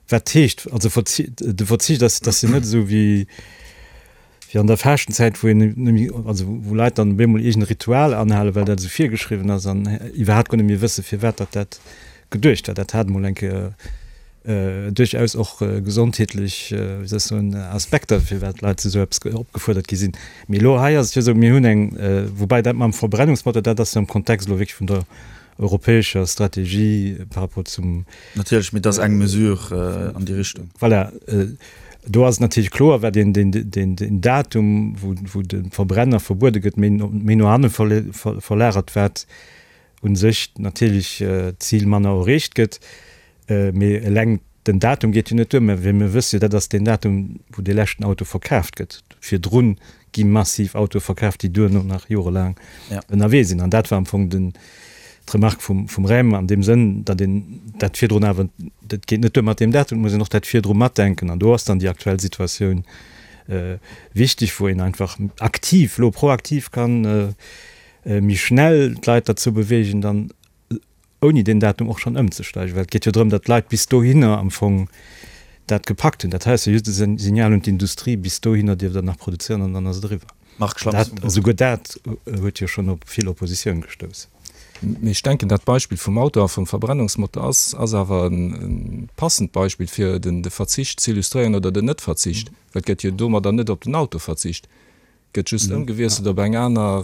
wat heescht, also de Verzicht ass, ass jo net esou wéi wéi an der Faaschtenzäit, wou een net méi, also wou Leit dann op eemol iergend e Ritual anhalen, well dat esou virgeschriwwen ass an iwwerhaapt guer net méi wësse firwat datt dat geduecht war. Dat hat emol eng Kéier duerchaus och gesondheetlech, wéi soll ech soen, Aspekter, firwat d'Leit zu esou eppes opgefuerdert gi sinn. Mee elo hei ass et jo esou, mir hunn eng, woubäi dat mam Verbrennungsmotor, dat ass jo am Kontext elo wierklech vun der europäescher Strategie par rapport zum. Natierlech, mee dat ass eng Mesure an déi Richtung. Voilà, do ass et natierlech kloer, wat een deen Datum, wou de Verbrenner verbuede gëtt, méi no hanne verlagert, wat u sech natierlech d'Zil manner erreecht gëtt. Mee eleng den Datum geet jo net duer. Mä mir wësse jo, dat ass deen Datum, wou dee leschten Auto verkaaft gëtt. Virdru gi massiv Autoe verkaaft, déi duerno nach jorelaang ënnerwee sinn. An dat war am Fong den, d'Remark vum, vum Raym an deem Sënn, datt een dat virdrun awer, dat geet net duer mat deem Datum, et muss een och dat virdru matdenken. An do ass dann déi aktuell Situatioun wichteg, wou een einfach aktiv, elo proaktiv kann méi schnell d'Leit derzou beweegen, dann ouni deen Datum och schonn ëmzesteigen, well et geet jo drëm, datt d'Leit bis dohinner am Fong dat gepackt hunn. Dat hei ass jo just e Signal un d'Industrie, bis dohinner dierft Der nach produzéieren an dann ass et eriwwer. Marc Schlamms vum Wort. Esouguer dat huet jo schonn op vill Oppositioun gestouss. Mee ech denken, dat Beispill vum Auto a vum Verbrennungsmotor ass ass awer e passend Beispill, fir de Verzicht z'illustréieren oder den Net-Verzicht, well et gëtt jo domadder net op den Auto verzicht. Gëtt just ëmgewiesselt op eng aner,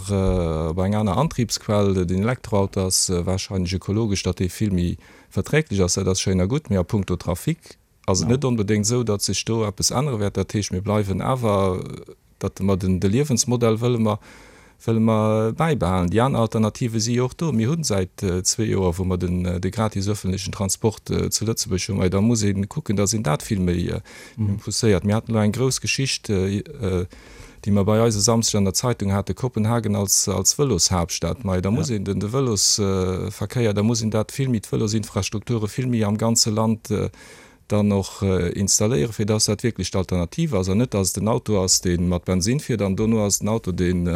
op eng aner Antriebsquell. Den Elektroauto ass warscheinlech ökologesch, datt dee vill méi verträglech ass, dat ass schéin a gutt, mee a puncto Trafic ass et net onbedéngt esou, datt sech do eppes ännere wäert. Dat heescht, mir bleiwen awer, datt mer den, de Liewensmodell wëlle mer, wëlle mer bäibehalen. Déi aner Alternative si jo och do. Mir hu säit zwee Joer, wou mer den, de gratis öffentlechen Transport zu Lëtzebuerg hunn, mä da muss ee kucken, datt een dat vill méi pousséiert. Mir haten elo eng grouss Geschicht, déi mer bei eis e Samsdeg an der Zeitung hate, Kopenhagen als als Vëloshaaptstad. Mei, da muss een den de Vëlosverkéier, da muss een dat vill méi, d'Vëlosinfrastrukture vill méi am ganze Land dann och installéieren, fir dass dat wierklech d'Alternativ ass an net, dass et den Auto ass, dee mat Bensinn fiert an dono ass et den Auto, deen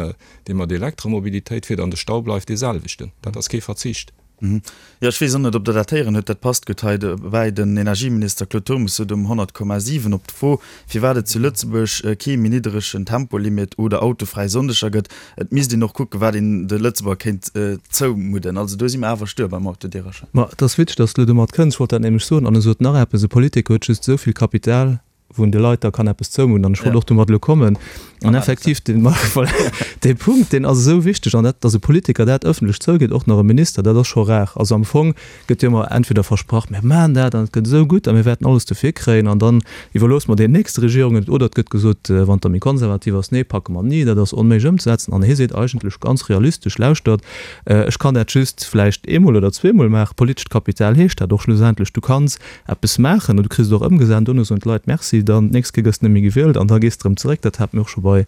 dee mat Elektromobilitéit fiert an de Stau bleift dee selwechten. Dat ass kee Verzicht. Jo, ech weess och net, ob Der dat héieren hutt. Dat passt gutt hei dobäi. Den Energieminister Claude Turmes sot um 100,7 op d'Fro, firwat et zu Lëtzebuerg kee méi nidderegen Tempolimit oder autofräi Sonndeger gëtt, et misst een och kucken, wat een de Lëtzebuerger kéint zoumudden. Also do si mer awer stuer beim Autodierercher. Ma et ass witzeg, dass de elo domat kënns. Ech wollt dat nämlech soen. An e sot nach eppes, E Politiker huet just esou vill Kapital, wou en de Leit da kann eppes zoumudden. An ech wollt och domat elo kommen. An effektiv, dee, voilà, dee Punkt, deen ass esou wichteg. An dat, datt e Politiker dat ëffentlech zougeet, och nach e Minister, dat ass scho rar. Also am Fong gëtt jo ëmmer entweder versprach, mir maachen dat an et gëtt esou gutt a mir wäerten alles dofir kréien an dann iwwerloosse mer deenen nächste Regierungen et. Oder et gëtt gesot, wann et da méi konservativ ass, nee, packe mer ni, dat ass onméiglech ëmzesetzen. An hie seet eigentlech ganz realistesch, Lauschtert, ech kann dat just vläicht eemol oder zweemol maachen. Politescht Kapital heescht dat och schlussendlech, du kanns eppes maachen an du kriss et och ëmgesat an dono soen d'Leit Merci, dann d'nächst Kéier gëss de net méi gewielt an da gees de erëm zeréck. Dat hate mir och scho bei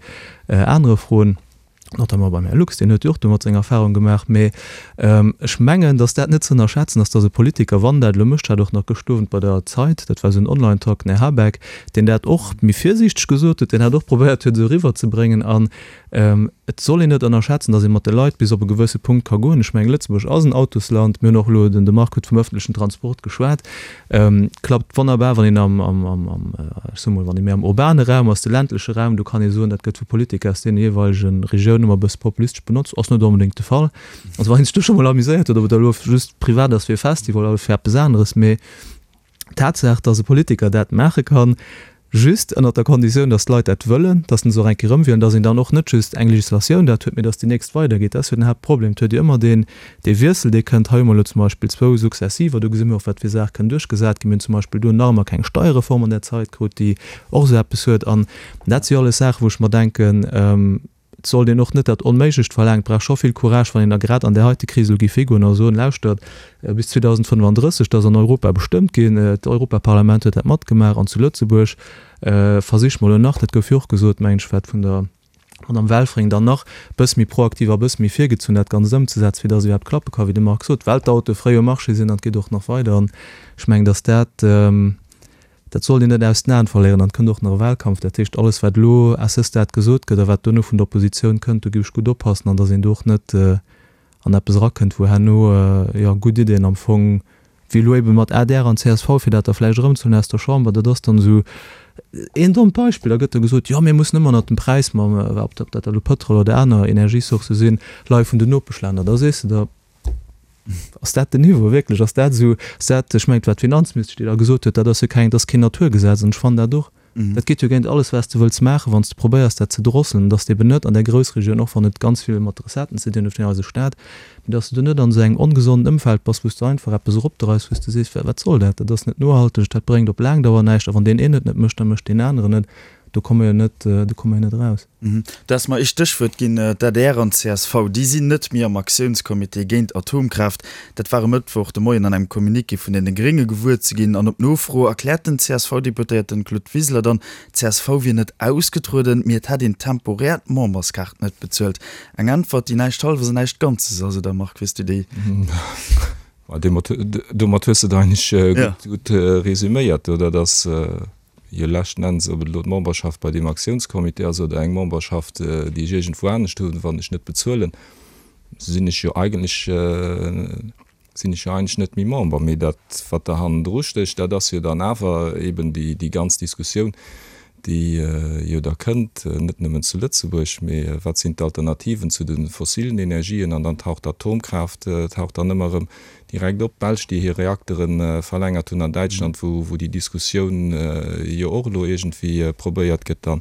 anere Froen. Notamment beim Här Lux, deen huet jo och domat seng Erfahrung gemaach. Mee ech mengen, datt dat net ze ënnerschätzen ass, datt e Politiker, wann dat elo mécht, hat och nach gëscht Owend bei der Zeit, dat war esou en Online-Talk, den Här Habeck, deen dat och méi virsiichteg gesot huet, deen hat och probéiert huet, esou eriwwerzebréngen. An et soll een net ënnerschätzen, datt ee mat de Leit bis op e gewësse Punkt ka goen. Ech mengen, Lëtzebuerg ass en Autosland. Mir hunn och elo, den de Marc huet vum ëffentlechen Transport geschwat, Klappt wonnerbar, wann een am, am, am, am, ech soe mol, wann ee méi am urbane Raum ass. De ländleche Raum, do kann ee soen, dat gëtt vu Politiker aus deene jeeweilege Regiounen ëmmer e bësse populistesch benotzt. Ass net onbedéngt de Fall. Also wann een sech do scho mol amuséiert huet, ob et elo just privat ass fir e Festival oder fir eppes aneres, mee d'Tatsaach, datt e Politiker dat maache kann, Just ënnert der Konditioun, dass d'Leit dat wëllen, dass se och eng Kéier erëmwielen, dass een dann och net just eng Législatioun dat huet, mee dass déi nächst weidergeet. Dat ass jo den Haaptproblem. Et huet jo ëmmer deen, dee Wiessel, dee kënnt. Hei hu mer elo zum Beispill zwou Successiver, do gesi mir och, wat fir Saache kënnen duerchgesat ginn. Mir hunn zum Beispill do nach ëmmer keng Steierreform an där Zait krut, déi och esou eppes huet. An dat si jo alles Saachen, wou ech mer denken, Et sollt een och net dat Onméiglecht verlaangen. Et brauch scho vill Courage, wann een da grad an där heite Kris elo géif higoen a soen, Lauschtert, bis 2035, dat ass an Europa bestëmmt ginn, d'Europaparlament huet dat matgemaach, an zu Lëtzebuerg versiche mer elo nach, dat gouf jo och gesot, mengen ech, wat vun der Madame Welfring, dann nach e bësse méi proaktiv a e bësse méi virgezunn dat Ganzt ëmzesetzen, fir datt et iwwerhaapt klappe ka, wéi de Marc sot, well d'Autoe fréi um Marché sinn an et geet och nach weider. An ech mengen, datt dat, Dat sollt een net aus den Aen verléieren. An et kënnt och nach e Wahlkampf. Dat heescht, alles wat elo à ce stade gesot gëtt a wat duerno vun der Oppositioun kënnt, do géif ech gutt oppassen an datt een do och net an eppes erakënnt, wou herno, jo, gutt Iddien am Fong, wéi elo ebe mat adr an csv, fir dat da vläicht erëmzehuelen aus der Chamber, dat ass dann esou een dommt Beispill, da gëtt da gesot, jo, mir mussen ëmmer ënnert dem Präis mam, ob dat elo Pëtrol oder aner Energiesourcë sinn, leie vun den Nopeschlänner. Da sees de der, Ass dat den Niveau wierklech? Ass dat esou, ass dat, ech mengen, et war d'Finanzministesch, déi da gesot huet, dat ass jo keng, dat ass keen Naturgesetz. An ech fannen dat och. Dat geet jo géint alles, wat s de wëlls maachen, wann s de probéiers, dat ze drosselen, dass de eben net an där Groussregioun, och wann et ganz vill mat de Recetten ze dinn huet vun eise Staat, mee dass de do net an esou engem ongesonden Ëmfeld bass, wou s de einfach eppes eropdreis, wou s de sees, Wat soll dat? Dat ass net nohalteg, dat bréngt op laang Dauer näischt. A wann deen een et net mécht, da mécht deen aneren et. Do komme mer jo net, do komme mer jo net eraus. Du has mer ee Stéchwuert ginn, d'ADR an d'CSV, déi sinn net méi am Aktiounscomité géint Atomkraaft. Dat war e Mëttwoch de Moien an engem Communiqué vun deene Grénge gewuer ze ginn. An op Nofro erkläert den CSV-Deputéierten Claude Wiseler dann, d'CSV wier net ausgetrueden, mee et hätt een temporär d'Memberskaart net bezuelt. Eng Äntwert, déi näischt Hallwes an näischt Ganzes ass, oder Marc, wéi s du déi? Domat hues de et eigentlech gutt resuméiert, oder? Dass Jo, leschten Enns, ob et elo d'Memberschaft bei deem Aktiounscomité ass oder eng Memberschaft, déi ech iergendwou anescht hunn, wann ech net bezuelen, sinn ech jo eigentlech, sinn ech jo eigentlech net méi Member. Mee dat, wat da hannendru stécht, dat ass jo dann awer eeben déi, déi ganz Diskussioun, déi jo da kënnt, net nëmmen zu Lëtzebuerg, mee wat sinn d'Alternativen zu de fossilen Energien? An dann taucht d'Atomkraaft taucht dann ëmmer erëm Direkt op, d'Belsch, déi hir Reaktere verlängert hunn, an Däitschland, wou wou déi Diskussioun jo och elo iergendwéi probéiert gëtt dann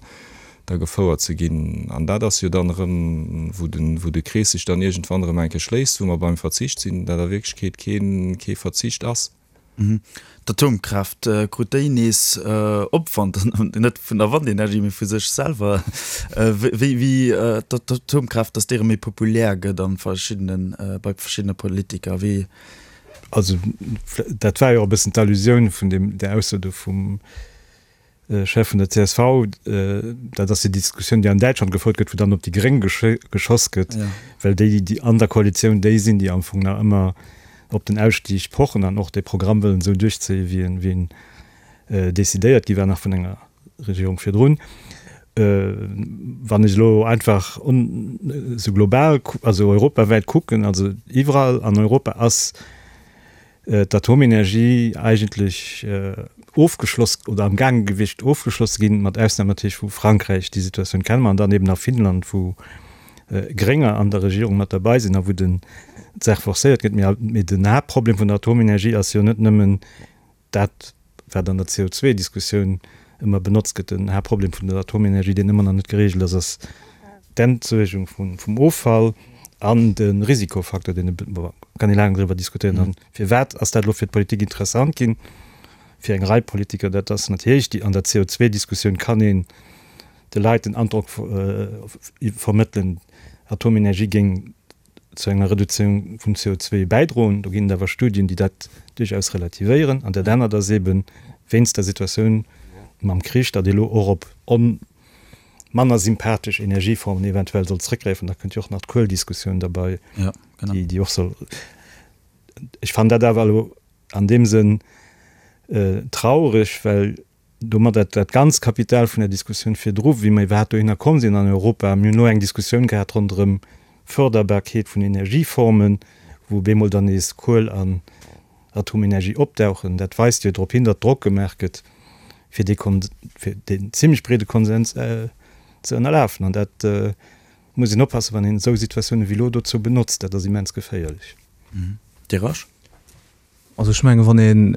da gefouert ze ginn. An dat ass jo dann erëm, wou de wou de Krees sech dann iergendwann erëm eng Kéier schléisst, wou mer beim Verzicht sinn, dat a Wierklechkeet kee kee Verzicht ass. D'Atomkraaft, krut déi nees Opwand, net vun der Wandenergie, mee vu sech selwer? Wéi wéi d'Atomkraaft, datt déi erëm méi populär gëtt a verschiddenen, bei verschiddene Politiker, wéi? Also dat war jo och e bëssen d'Allusioun vun deem, där Ausso do vum Chef vun der csv, dat ass déi Diskussioun, déi an Däitschland gefouert gëtt, wou dann op déi Gréng geschoss gëtt, well déi, déi an der Koalitioun déi sinn, déi am Fong nach ëmmer op den Ausstig pochen an och dee Programm wëllen esou duerchzéien, wéi en, wéi en decidéiert gi war nach vun enger Regierung virdrun. Wann ech elo einfach esou global, also europawäit kucken, also iwwerall an Europa ass d'Atomenergie eigentlech ofgeschloss oder am gaange gewiescht ofgeschloss ze ginn, mat Ausnam natierlech vu Frankräich, déi Situatioun kenne mer, an dann eben a Finnland, wou Grénger an der Regierung mat derbei sinn a wou den d'Saach forcéiert gëtt. Mee den Haaptproblem vun der Atomenergie ass jo net nëmmen dat, wat an der CO2-Diskussioun ëmmer benotzt gëtt, den Haaptproblem vun der Atomenergie, deen ëmmer nach net geregelt ass, ass d'Entsuergung vum Offall an de Risikofaktor, deen e, bon, kann ee laang driwwer diskutéieren. An firwat ass dat elo fir d'Politik interessant ginn, fir eng Rei Politiker? Dat ass natierlech déi, an der CO2-Diskussioun kann een de Leit den Androck vermëttelen, Atomenergie géing zu enger Reduzéierung vum CO2 bäidroen. Do ginn et awer Studien, déi dat duerchaus relativéieren. An dat anert ass eeben, wéinst der Situatioun mam Krich, datt ee lo och op. manner sympathesch Energieformen eventuell soll zrëckgräifen. Da kënnt jo och nach d'Kueldiskussioun derbei, déi, déi och soll. Ech fannen dat awer elo an deem Sënn traureg, well domadder dat ganzt Kapital vun der Diskussioun virdru, wéi mer iwwerhaapt dohinner komm sinn an Europa, mir hunn elo eng Diskussioun gehat ronderëm d'Förderbarkeet vun Energieformen, wou op eemol dann nees Kuel an Atomenergie opdauchen. Dat weist jo drop hin, datt Drock gemaach gëtt, fir dee fir deen zimlech breede Konsens ze ënnerlafen. An dat muss een oppassen, wann een esou Situatiounen wéi elo dozou benotzt. Dat ass immens geféierlech. Dir Rasch? Also ech mengen, wann een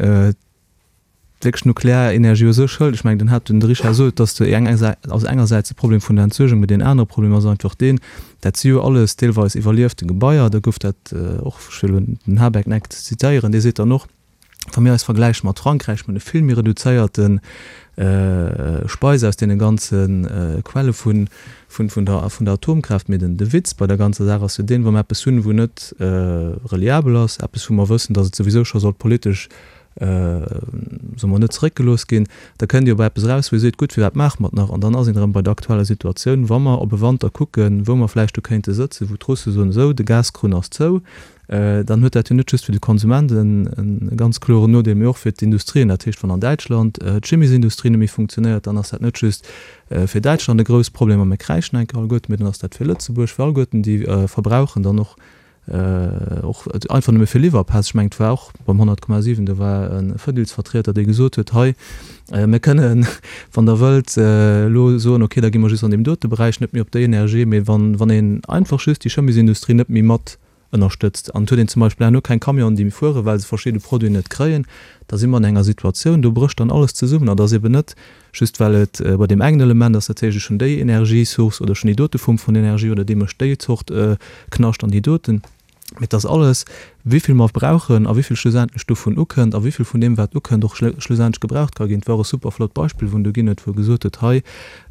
wierklech Nuklearenergie u sech hëlt, ech mengen, den hat den Richard sot, dass de eng also engersäits de Problem vun der Entsuergung, mee deen anere Problem ass einfach deen, dat si jo alles deelweis iwwerliefte Gebaier, da gouf dat och, ech wëll elo den Habeck net zitéieren, dee seet dann och, wa mir eis vergläiche mat Frankräich, mir hunn e vill méi reduzéierte Speis aus deene ganze Quelle vun vun der vun der Atomkraaft. Mee den de Witz bei der ganzer Saach ass jo deen, wa mer eppes hunn, wou net reliabel ass, eppes wou mer wëssen, datt et souwisou scho sollt politesch soe mer, net zeréckgelooss ginn, da kënnt Dir op eppes eraus, wou Dir seet, gutt, firwat maache mer et nach? An dann ass een erëm bei der aktueller Situatioun, wa mer op e Wanter kucken, wou mer vläicht do kéinte sëtzen, wou d'Russe soen, esou, de Gaskrunn ass zou, dann huet dat jo net just fir de Konsument e ganz kloren Nodeel, mee och fir d'Industrien. Dat heescht, wann an Däitschland d'Chimiesindustrie net méi funktionéiert, dann ass dat net just fir Däitschland e grouss Problem a mir kräischen enke alleguerten, mee dann ass dat fir Lëtzebuerg, fir alleguerten déi verbrauchen dann och Och einfach nëmme fir Liwwerpäss. Ech mengen, et war och beim 100,7, do war e Fedilsvertrieter, dee gesot huet, hei, mir kënnen, wann Der wëllt, elo soen, okay, da gi mer just an deem dote Beräich net méi op déi Energie, mee wann, wann een einfach just déi Chemiesindustrie net méi mat ënnerstëtzt an et huet een zum Beispill herno keng Camionen, déi méi fueren, well se verschidde Produiten net kréien, da si mer an enger Situatioun, do brécht dann alles zesummen. An et ass eben net Just well et bei deem engen Element ass, dat heescht ech hunn déi Energiesource oder ech hunn déi dote Form vun Energie oder dee mécht déi Zort Knascht an déi doten, mee et ass alles, wéivill mer brauchen a wéivill schlussendlech dovun ukënnt a wéivill vun deem wat ukënnt och schlussendlech gebraucht ka ginn. Et war och e super flott Beispill wou en do ginn huet, wou e gesot huet, hei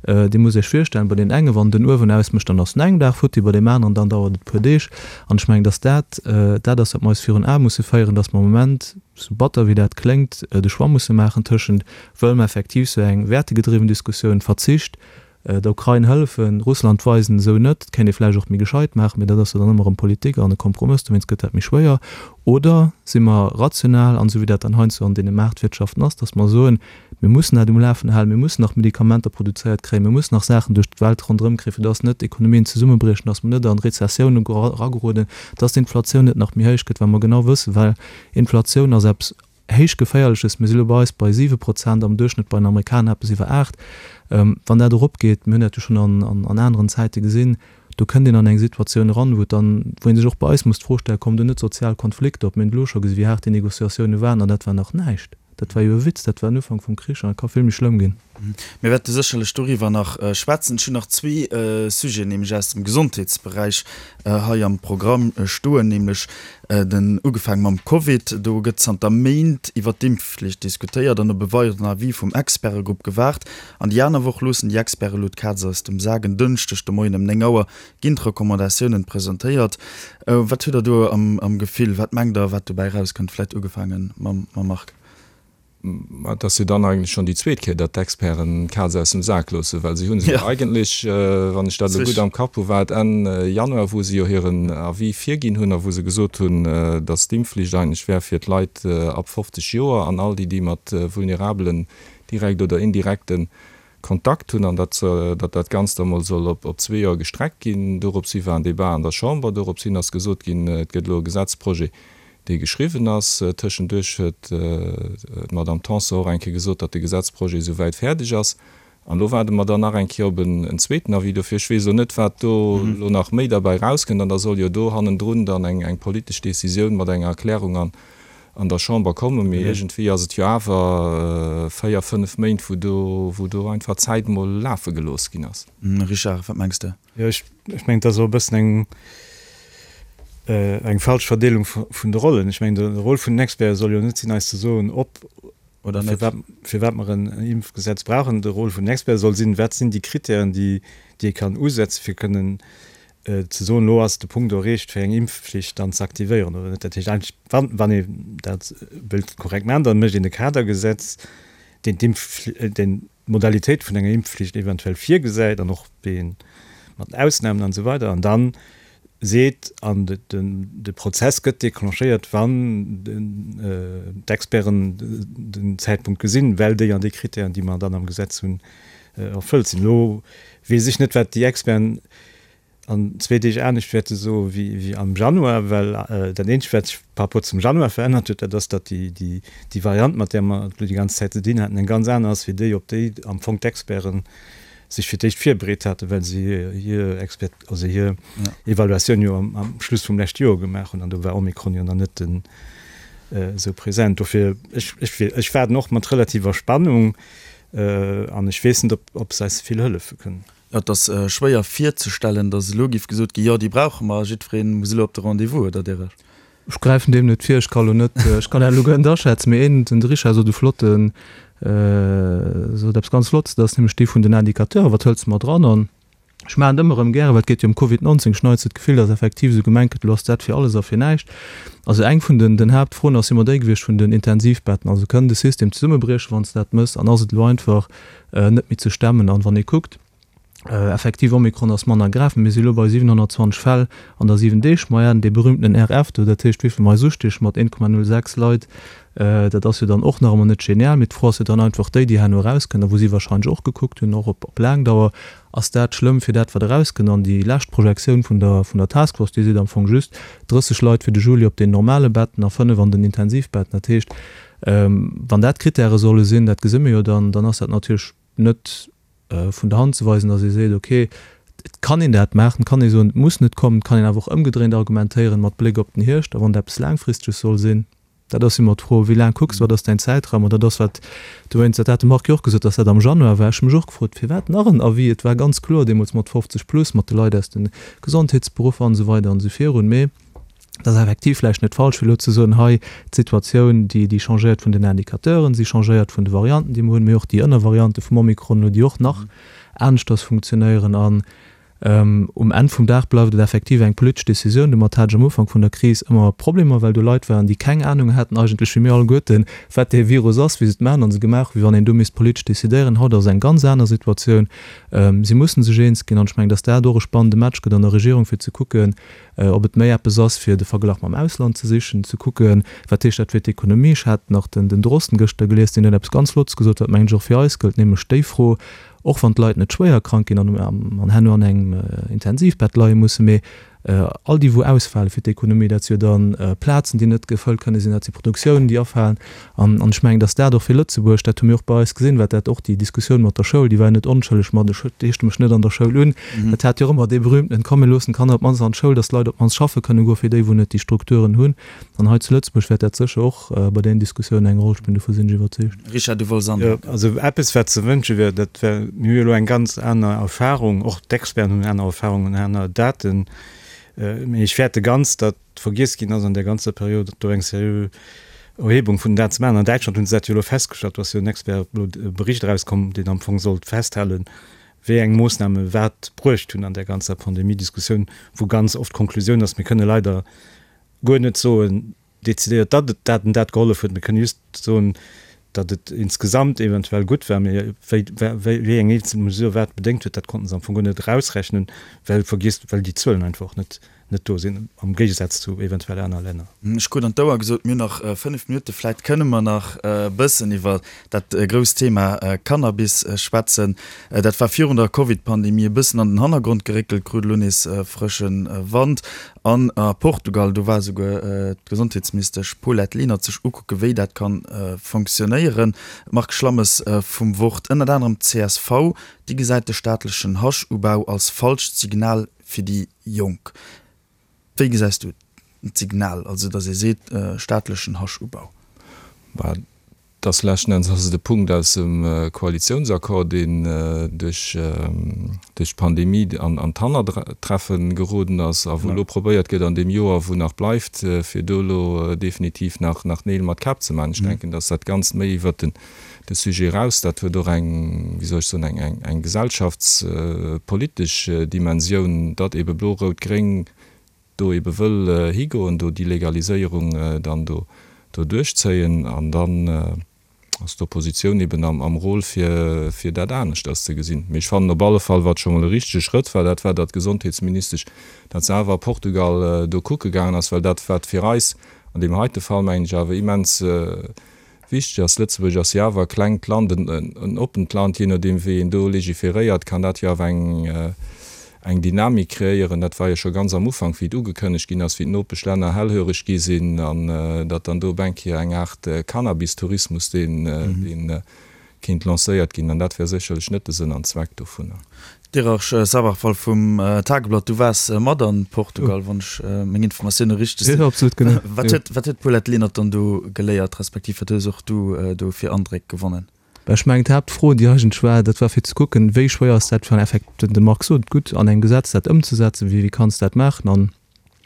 Dir musst Iech virstellen, bei deem enge wann den Uewen ausmécht, dann ass en engem Dag futti, bei deem aneren dann dauert et e puer Deeg. An ech mengen, datt dat dat ass wat mer eis virun Ae musse féieren, datt mer am Moment, sou batter wéi dat kléngt, de Choix musse maachen tëschent Wëlle mer effektiv sou eng wäertegedriwwen Diskussioun, Verzicht, der Ukrain hëllefen, Russland weisen, esou net, dat kéint ee vläicht och méi gescheit maachen, mee dat ass jo dann ëmmer erëm Politik an e Kompromëss, dowéinst gëtt dat méi schwéier. Oder si mer rational an, esou wéi dat dann heiansdo an deene Maartwirtschaften ass, datt mer soen, mir mussen dat um Lafen halen, mir mussen nach Medikamenter produzéiert kréien, mir mussen nach Saachen duerch d'Welt ronderëm kréien, fir datt net d'Ekonomien zesummebriechen, datt mer net an Rezessioune erageroden, datt d'Inflatioun net nach méi héich gëtt, well mer genau wëssen, well Inflatioun ass eppes héich geféierleches, mir si lo bei eis bei 7 Prozent, am Duerchschnëtt bei den Amerikaner eppes iwwer 8, wann dat eropgeet, mir hunn dat jo schonn an aneren Zäite gesinn, do kënnt een an eng Situatioun eran, wou et dann, wou ee sech och bei eis muss d'Fro stellen, kommen do net sozial Konflikter op? Mir hunn et elo scho gesi wéi haart déi Négociatioune waren an dat war nach näischt, dat war jo e Witz, dat war den Ufank vum Krich an et ka vill méi schlëmm ginn. Mir wäerte sécherlech doriwwer nach schwätzen. Ech hunn nach zwee Sujeten, nämlech aus dem Gesondheetsberäich hei am Programm stoen, nämlech den, ugefaange mam Covid. Do gëtt zanter Méint iwwer d'Impfflicht diskutéiert an op e weideren Avis vum Expertegrupp gewaart. An déi aner Woch loossen déi Experte elo d'Kaz aus dem Sak. En Dënschdeg de Moien ëm 9 Auer ginn d'Recommandatiounen presentéiert. Wat hutt Der do am Gefill? Wat mengt Der, wat dobäi erauskënnt? Vläicht ugefaange mam Marc. Mä et ass jo dann eigentlech schonn déi zweet Kéier, datt d'Experten d'Kaz aus dem Sak loossen, well si hu se jo eigentlech, wann ech dat elo gutt am Kapp hu, war et Enn Januar, wou se jo hiren Avis virginn hunn a wou se gesot hunn, datt d'Impfflicht eigentlech wär fir d'Leit ab 50 Joer an all déi, déi mat vulnerabelen, direkt oder indirekte Kontakt hunn an datt datt dat Ganzt da mol soll op zwee Joer gestreckt ginn. Dorops hi war en Débat an der Chamber. Dorops hin ass gesot ginn, et gëtt elo e Gesetzprojet, dee geschriwwen ass. Tëschenduerch huet d'Madame Tanson och eng Kéier gesot, datt de Gesetzprojet esou wäit fäerdeg ass. An elo waarde mer dann nach eng Kéier op en zweeten Avis. Dofir, ech weess elo net, wat do elo nach méi derbäi erauskënnt. An da soll jo do hannendrun dann eng politesch Décisioun mat enger Erklärung an an der Chamber kommen, mee iergendwéi ass et jo awer 4, 5 Méint, wou do, wou do einfach d'Zäit mol lafe gelooss ginn ass. Richard, wat mengs de? Jo, ech, ech mengen, et ass och e bëssen eng, eng falsch Verdeelung vun de Rollen. Ech mengen, de Rôle vun den Experten soll jo net sinn, eis ze soen, ob oder net, firwat mer en Impfgesetz brauchen. De Rôle vun den Experten soll sinn, wat sinn déi Kritären, déi, déi ee kann usetzen, fir kënnen ze soen, elo ass de Punkt erreecht, fir eng Impfflicht dann ze aktivéieren oder net. Dat heescht eigentlech, wann, wann ee dat wëllt korrekt maachen, da mécht een e Kadergesetz, deen d'Impf-, deen. d'Modalitéit vun enger Impfflicht eventuell virgesäit an och wéi een mat Ausnamen an esou weider an dann seet, an de Prozess gëtt déclenchéiert, wann d'Experten den Zäitpunkt gesinn, well déi an déi Kritären, déi mer dann am Gesetz hunn, erfëllt sinn. Elo weess ech net, wat déi Experten an zwee Deeg anescht wäerte soe wéi am Januar, well dat Eenzegt, wat sech par rapport zum Januar verännert huet, dat ass, datt déi Variant, mat där mer et elo déi ganz Zäit ze dinn haten, eng ganz aner ass wéi déi, op déi am Fong d'Experten sech fir d'éischt virbereet haten, well se hir Expert, also hir Evaluatioun jo am Schluss vum leschte Joer gemaach hunn, an do war Omikron jo nach net esou present. Dofir, ech, ech, ech waarden och mat relativer Spannung, an ech weess net, ob, ob se eis vill hëllefe kënnen. Et ass schwéier virzestellen, datt elo géif gesot ginn, jo, déi brauche mer a jiddweree muss elo op de Rendez-vous, oder Derech? Ech gräifen deem net vir, ech ka lo net, ech kann dat elo guer net aschätzen, mee een, den de Richard sot e flotten, sot eppes ganz Flottes, dat ass nämlech dee vun den Indicateuren, wat hëls de mat dran? An ech maachen et ëmmer erëm gären, well et geet jo ëm Covid 19, ech hunn heiansdo d'Gefill, datt effektiv esou gemengt gëtt, elo ass dat fir alles a fir näischt. Also eng vun den, den Haaptfroen ass jo ëmmer déi gewiescht vun den Intensivbetten, also kënn de System zesummebriechen, wann s de dat mëss, an ass et elo einfach net méi ze stemmen? An wann ee kuckt, Effektiv, Omikron ass manner grave, mir si elo bei 720 Fäll an der 7 Deeg Moyenne, dee berühmtenen RF do, dat heescht wéivill mer eis ustieche mat 1,06 Leit, dat ass jo dann och nach ëmmer net genial. Mee d'Fro ass jo dann einfach déi, déi herno erauskënnt a wou si wahrscheinlech och gekuckt hunn, och op laang Dauer, ass dat schlëmm fir dat wat erauskënnt? An déi lescht Projektioun vun der vun der Task Force, déi seet am Fong just 30 Leit fir de Juli op den normale Betten a 5 an den Intensivbetten. Dat heescht, wann dat d'Krittäre solle sinn, dat gesi mir jo dann, dann ass dat natierlech net vun der Hand ze weisen, datt ee seet, okay, et kann een dat maachen, et kann ee soen, et muss net kommen, et kann een awer och ëmgedréint argumentéieren mat Bléck op den Hierscht, a wann et eppes Laangfristeges soll sinn, dat ass ëmmer d'Fro, wéi laang kucks de, wat ass däin Zäitraum? An dat ass wat dowéinst, dat hat de Marc jo och gesot, datt dat am Januar war, ech hu mech och gefrot, firwat nach en Avis? Et war ganz kloer deemools mat 50 plus, mat de Leit aus de Gesondheetsberuffer an esou weider an esou virun, mee Et ass effektiv vläicht net falsch, fir elo ze soen, hei, d'Situatioun, déi, déi changéiert vun den Indicateuren, si changéiert vun de Varianten, déi mer hunn, mee och déi Ënnervariante vum Omikron elo, déi och nach aneschters funktionéieren. An um Enn vum Dag bleift et effektiv eng politesch Decisioun. Domat hat ech am Ufank vun der Kris ëmmer Problemer, well do Leit waren, déi keng Anung haten eigentlech, wéi mir alleguerten, wat dee Virus ass, wéi se et maachen a se gemaach hunn, wéi wann een do misst politesch decidéieren. Haut ass eng ganz aner Situatioun. Si mussen sech eens ginn. An ech mengen, dass dat och e spannende Match gëtt an der Regierung, fir ze kucken, ob et méi eppes ass, fir de Verglach mam Ausland ze sichen, ze kucken, wat heescht dat fir d'Ekonomie. Ech hat nach den den Drosten gëschter gelies, deen huet eppes ganz Flottes gesot, wat mengen ech och fir eis gëllt, nämlech déi Fro, och wann d'Leit net schwéier krank ginn an an herno an engem Intensivbett leie mussen, mee all déi wou ausfale fir d'Ekonomie, dat si jo dann Plazen, déi net gefëllt kënne sinn, dat si Produktiounen, déi afalen. An ech mengen, datt dat och fir Lëtzebuerg, dat hu mir och bei eis gesinn, wat dat och déi Diskussioun mat der Schoul, déi war jo net onschëlleg mat ech heeschte mech net an der Schoul un, dat hat jo och ëmmer dee berühmtenen, komm mir loossen d'Kanner op d'mannst an d'Schoul, datt d'Leit op d'mannst schaffe kënne goen, fir déi wou net déi Strukturen hunn. An hei zu Lëtzebuerg wäert dat sécher och bei deenen Diskussiounen eng Roll spillen, dovu sinn ech iwwerzeegt. Richard, du wollts anhänken. Jo, also eppes wat ze wënsche wier, dat wär, mir hu jo elo eng ganz aner Erfahrung, och d'Experten hunn aner Erfahrungen, aner Daten, mee ech fäerte ganz, datt, vergiess ginn ass an där ganzer Period, do eng seriö Erhebung vun den Daten ze maachen. An Däitschland hunn se dat jo elo festgestallt, do ass jo en Expert elo e Bericht erauskomm, deen am Fong sollt festhalen, wéi eng Moossname wat bruecht hunn an där ganzer Pandemiediskussioun, wou ganz oft d'Konklusioun ass, mir kënne leider guer net soen decidéiert, datt et dat an dat gehollef huet, mir kënne just soen, datt et insgesamt eventuell gutt war, mee wéi, wéi eng eenzel Mesure wat bedéngt huet, dat konnte se am Fong guer net erausrechnen, well vergiess, well déi Zuelen einfach och net net do sinn, am Géigesaz zu eventuell aner Länner. Ech krut an d'Ouer gesot, mir hunn nach 5 Minutten. Vläit kënne mer nach e bëssen iwwer dat grousst Thema Cannabis schwätzen. Dat war virun der Covid-Pandemie e bëssen an den Hannergrond geréckelt, krut elo nees frësche Wand. An a Portugal, do war esouguer d'Gesondheetsministesch Paulette Lenert sech ukucke wéi dat ka fonctionnéieren. Marc Schlammes vum Wort, Ënnert anerem d'CSV, déi gesäit de staatlechen Haschubau als falscht Signal fir déi Jonk. Wéi gesäis du d'Signal, also datt ee seet, staatlechen Haschubau? Bah, et ass leschten Enns ass et e Punkt aus dem Koalitiounsaccord, deen duerch duerch d'Pandemie an an d'Hannertreffe geroden ass a wou elo probéiert gëtt an deem Joer, wou nach bleift, fir do elo definitiv nach nach Neel mat Käpp ze maachen. Ech denken, datt dat Ganzt méi iwwert den de Sujet eraus. Dat huet och eng, wéi soll ech soen, eng, eng, eng gesellschaftspolitesch Dimensioun, datt ebe Blo-Rout-Gréng do ebe wëll higoen, do déi Legaliséierung dann do, do duerchzéien. An dann. Ass d'Oppositioun eben am Rôle fir fir dat aneschters ze gesinn. Mee ech fannen op alle Fall, wat scho mol e richtege Schrëtt war, dat war, datt d'Gesondheetsministesch dat se awer a Portugal do kucke gaangen ass, well dat wat fir eis an deem heite Fall, mengen ech, awer immens wichteg ass, Lëtzebuerg ass jo awer e klengt Land, en oppent Land, jee nodeem wéi een do legiferéiert, kann dat jo awer eng eng Dynamik kreéieren. Dat war jo scho ganz am Ufank, wéi et ugekënnegt ginn ass, wéi d'Nopeschlänner hellhöreg gi sinn an datt dann do op eng Kéier eng Aart Cannabis-Tourismus, deen, deen kéint lancéiert ginn. An dat wär sécherlech net de Sënn an Zweck dovunner. D'Iraj Sabharwal vum Tageblatt, du waars mat an Portugal, wann ech meng Informatioune richteg sinn. Jo, absolut, genau. Wat huet, wat huet d'Paulette Lenert dann do geléiert, respektiv wat hues och du do fir Andréck gewonnen? Ech mengen, d'Haaptfro, déi eigentlech war, dat war fir ze kucken, wéi schwéier ass dat fir en Effekt, de Marc sot et gutt, an engem Gesetz dat ëmzesetzen, wéi kanns de dat maachen? An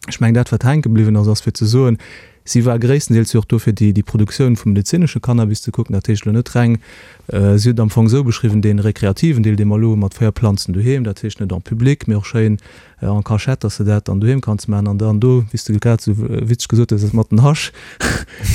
ech mengen, dat wat hänke bliwwen ass, ass fir ze soen, si war gréisstendeels jo och do fir déi déi Produktioun vum medezinesche Cannabis ze kucken, dat heescht elo net reng, si huet et am Fong esou beschriwwen, dee rekreativen Deel, dee mer elo hu mat 4 Planzen doheem, dat heescht net en public, mee och schéin en cachette, dass de dat dann doheem kanns maachen an dann do, wéi s de grad esou witzeg gesot hues, mat den Hasch,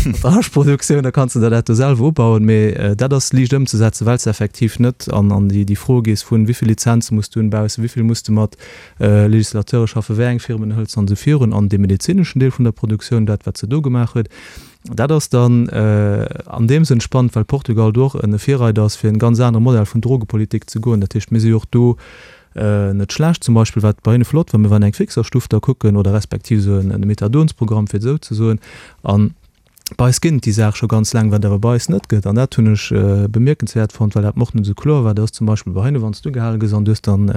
mat der Haschproduktioun, da kanns de der dat do selwer ubauen. Mee dat ass liicht ëmzesetzen, well s de effektiv net an an déi déi Fro gees vun, wéi vill Lizenze muss du hunn baussen, wéi vill muss de mat Legislateure schaffen, wéi eng Firmen hëls de an esou virun. An dee medezineschen Deel vun der Produktioun, dat wat se do gemaach huet, dat ass dann an deem Sënn spannend, well Portugal do och e Virreider ass, fir en ganz anere Modell vun Drogepolitik ze goen. Dat heescht, mir si jo och do Net schlecht, zum Beispill wat bei hinne flott war, mir waren eng Fixerstuff da kucken oder respektiv esou en Methadonsprogramm, fir et esou ze soen. An bei eis ginn et déi Saach scho ganz laang, wat awer bei eis net gëtt, an dat hunn ech bemierkenswäert fonnt, well dat mer och net esou kloer war, dat ass zum Beispill bei hinne, wann s du gehale gëss an du hues dann,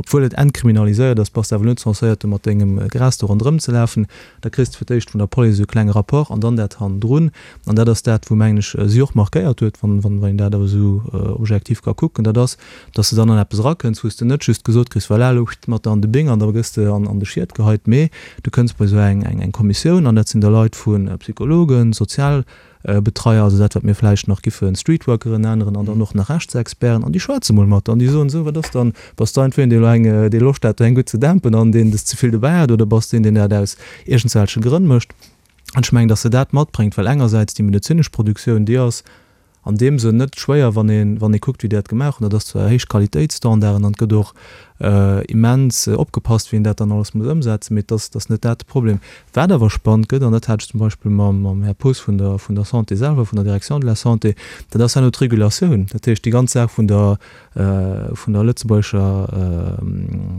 obwuel et entkriminaliséiert ass, bass de awer net censéiert do mat dengem Gras do ronderëm ze lafen, da kriss de fir d'éischt vun der Police esou e klenge Rapport an dann dat hannendrun. An dat ass dat, wou, mengen ech, si och markéiert huet, wann een dat awer esou objektiv ka kucken, dat ass, dass de dann an eppes erakënns, wou s de net just gesot kriss, voilà, elo mat der an de Bing an da gëss de an de Schiet geheit, mee du kënns bei esou eng eng Kommissioun an dat sinn da Leit vu Psychologen, Sozialbetreier, also dat wat mir vläicht nach giffe Streetworkeren nenneren an dann och nach Rechtsexperten an déi schwätze mol mat der an déi soen, esou wat ass dann, bass de einfach een, dee elo eng, dee Loscht hat do eng gutt ze dämpen an deen des ze vill dobäi hat oder bass de een, deen dat aus iergendswelche Grënn mécht? An ech mengen, dass se dat matbréngt, well engersäits déi medezinesch Produktioun, déi ass an deem Sënn net schwéier, wann ee wann ee kuckt, wéi déi dat gemaach hunn. Dat ass zwar héich Qualitéitsstandarden an et gëtt och immens opgepasst, wéi een dat dann alles muss ëmsetzen, mee et ass, et ass net dat de Problem. Wat awer spannend gëtt, an dat hat ech zum Beispill mam mam Här Poos vun der vun der Santé selwer, vun der Direction de la Santé, dat ass herno d'Regulatioun, dat heescht déi ganz Saach vun der vun der lëtzebuergescher,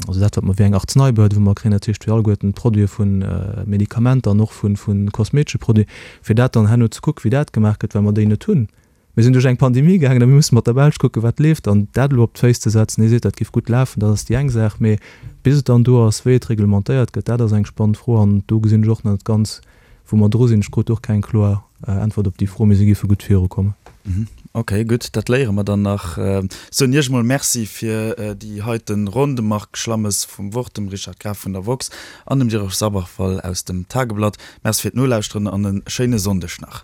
also dat wat mer wéi eng Arzeneibehörde wou mer kréien, dat heescht fir alleguerten d'Produite vu Medikamenter an och vu vu kosmetesche Produiten, fir dat dann herno ze kucken, wéi dat gemaach gëtt, well mer déi net hunn. Mir sinn duerch eng Pandemie gaangen a mir musse mat der Belsch kucken, wat leeft. An dat elo op d'Féiss ze setzen, hie seet, dat géif gutt lafen, dat ass déi eng Saach, mee bis et dann do ass, wéi et reglementéiert gëtt, dat ass eng spannend Fro an do gesinn ech och nach net ganz, wou mer dru sinn. Ech krut och keng kloer Äntwert op déi Fro, mee si géife gutt virukommen. Ok, gutt, dat léiere mer dann nach. Soen Iech emol Merci fir déi heiten Ronn, dem Marc Schlammes vum Wort, dem Richard Graf vun der woxx an dem Jérôme Sabarfal aus dem Tageblatt. Merci fir d'Nolauschteren an e schéine Sonndeg nach.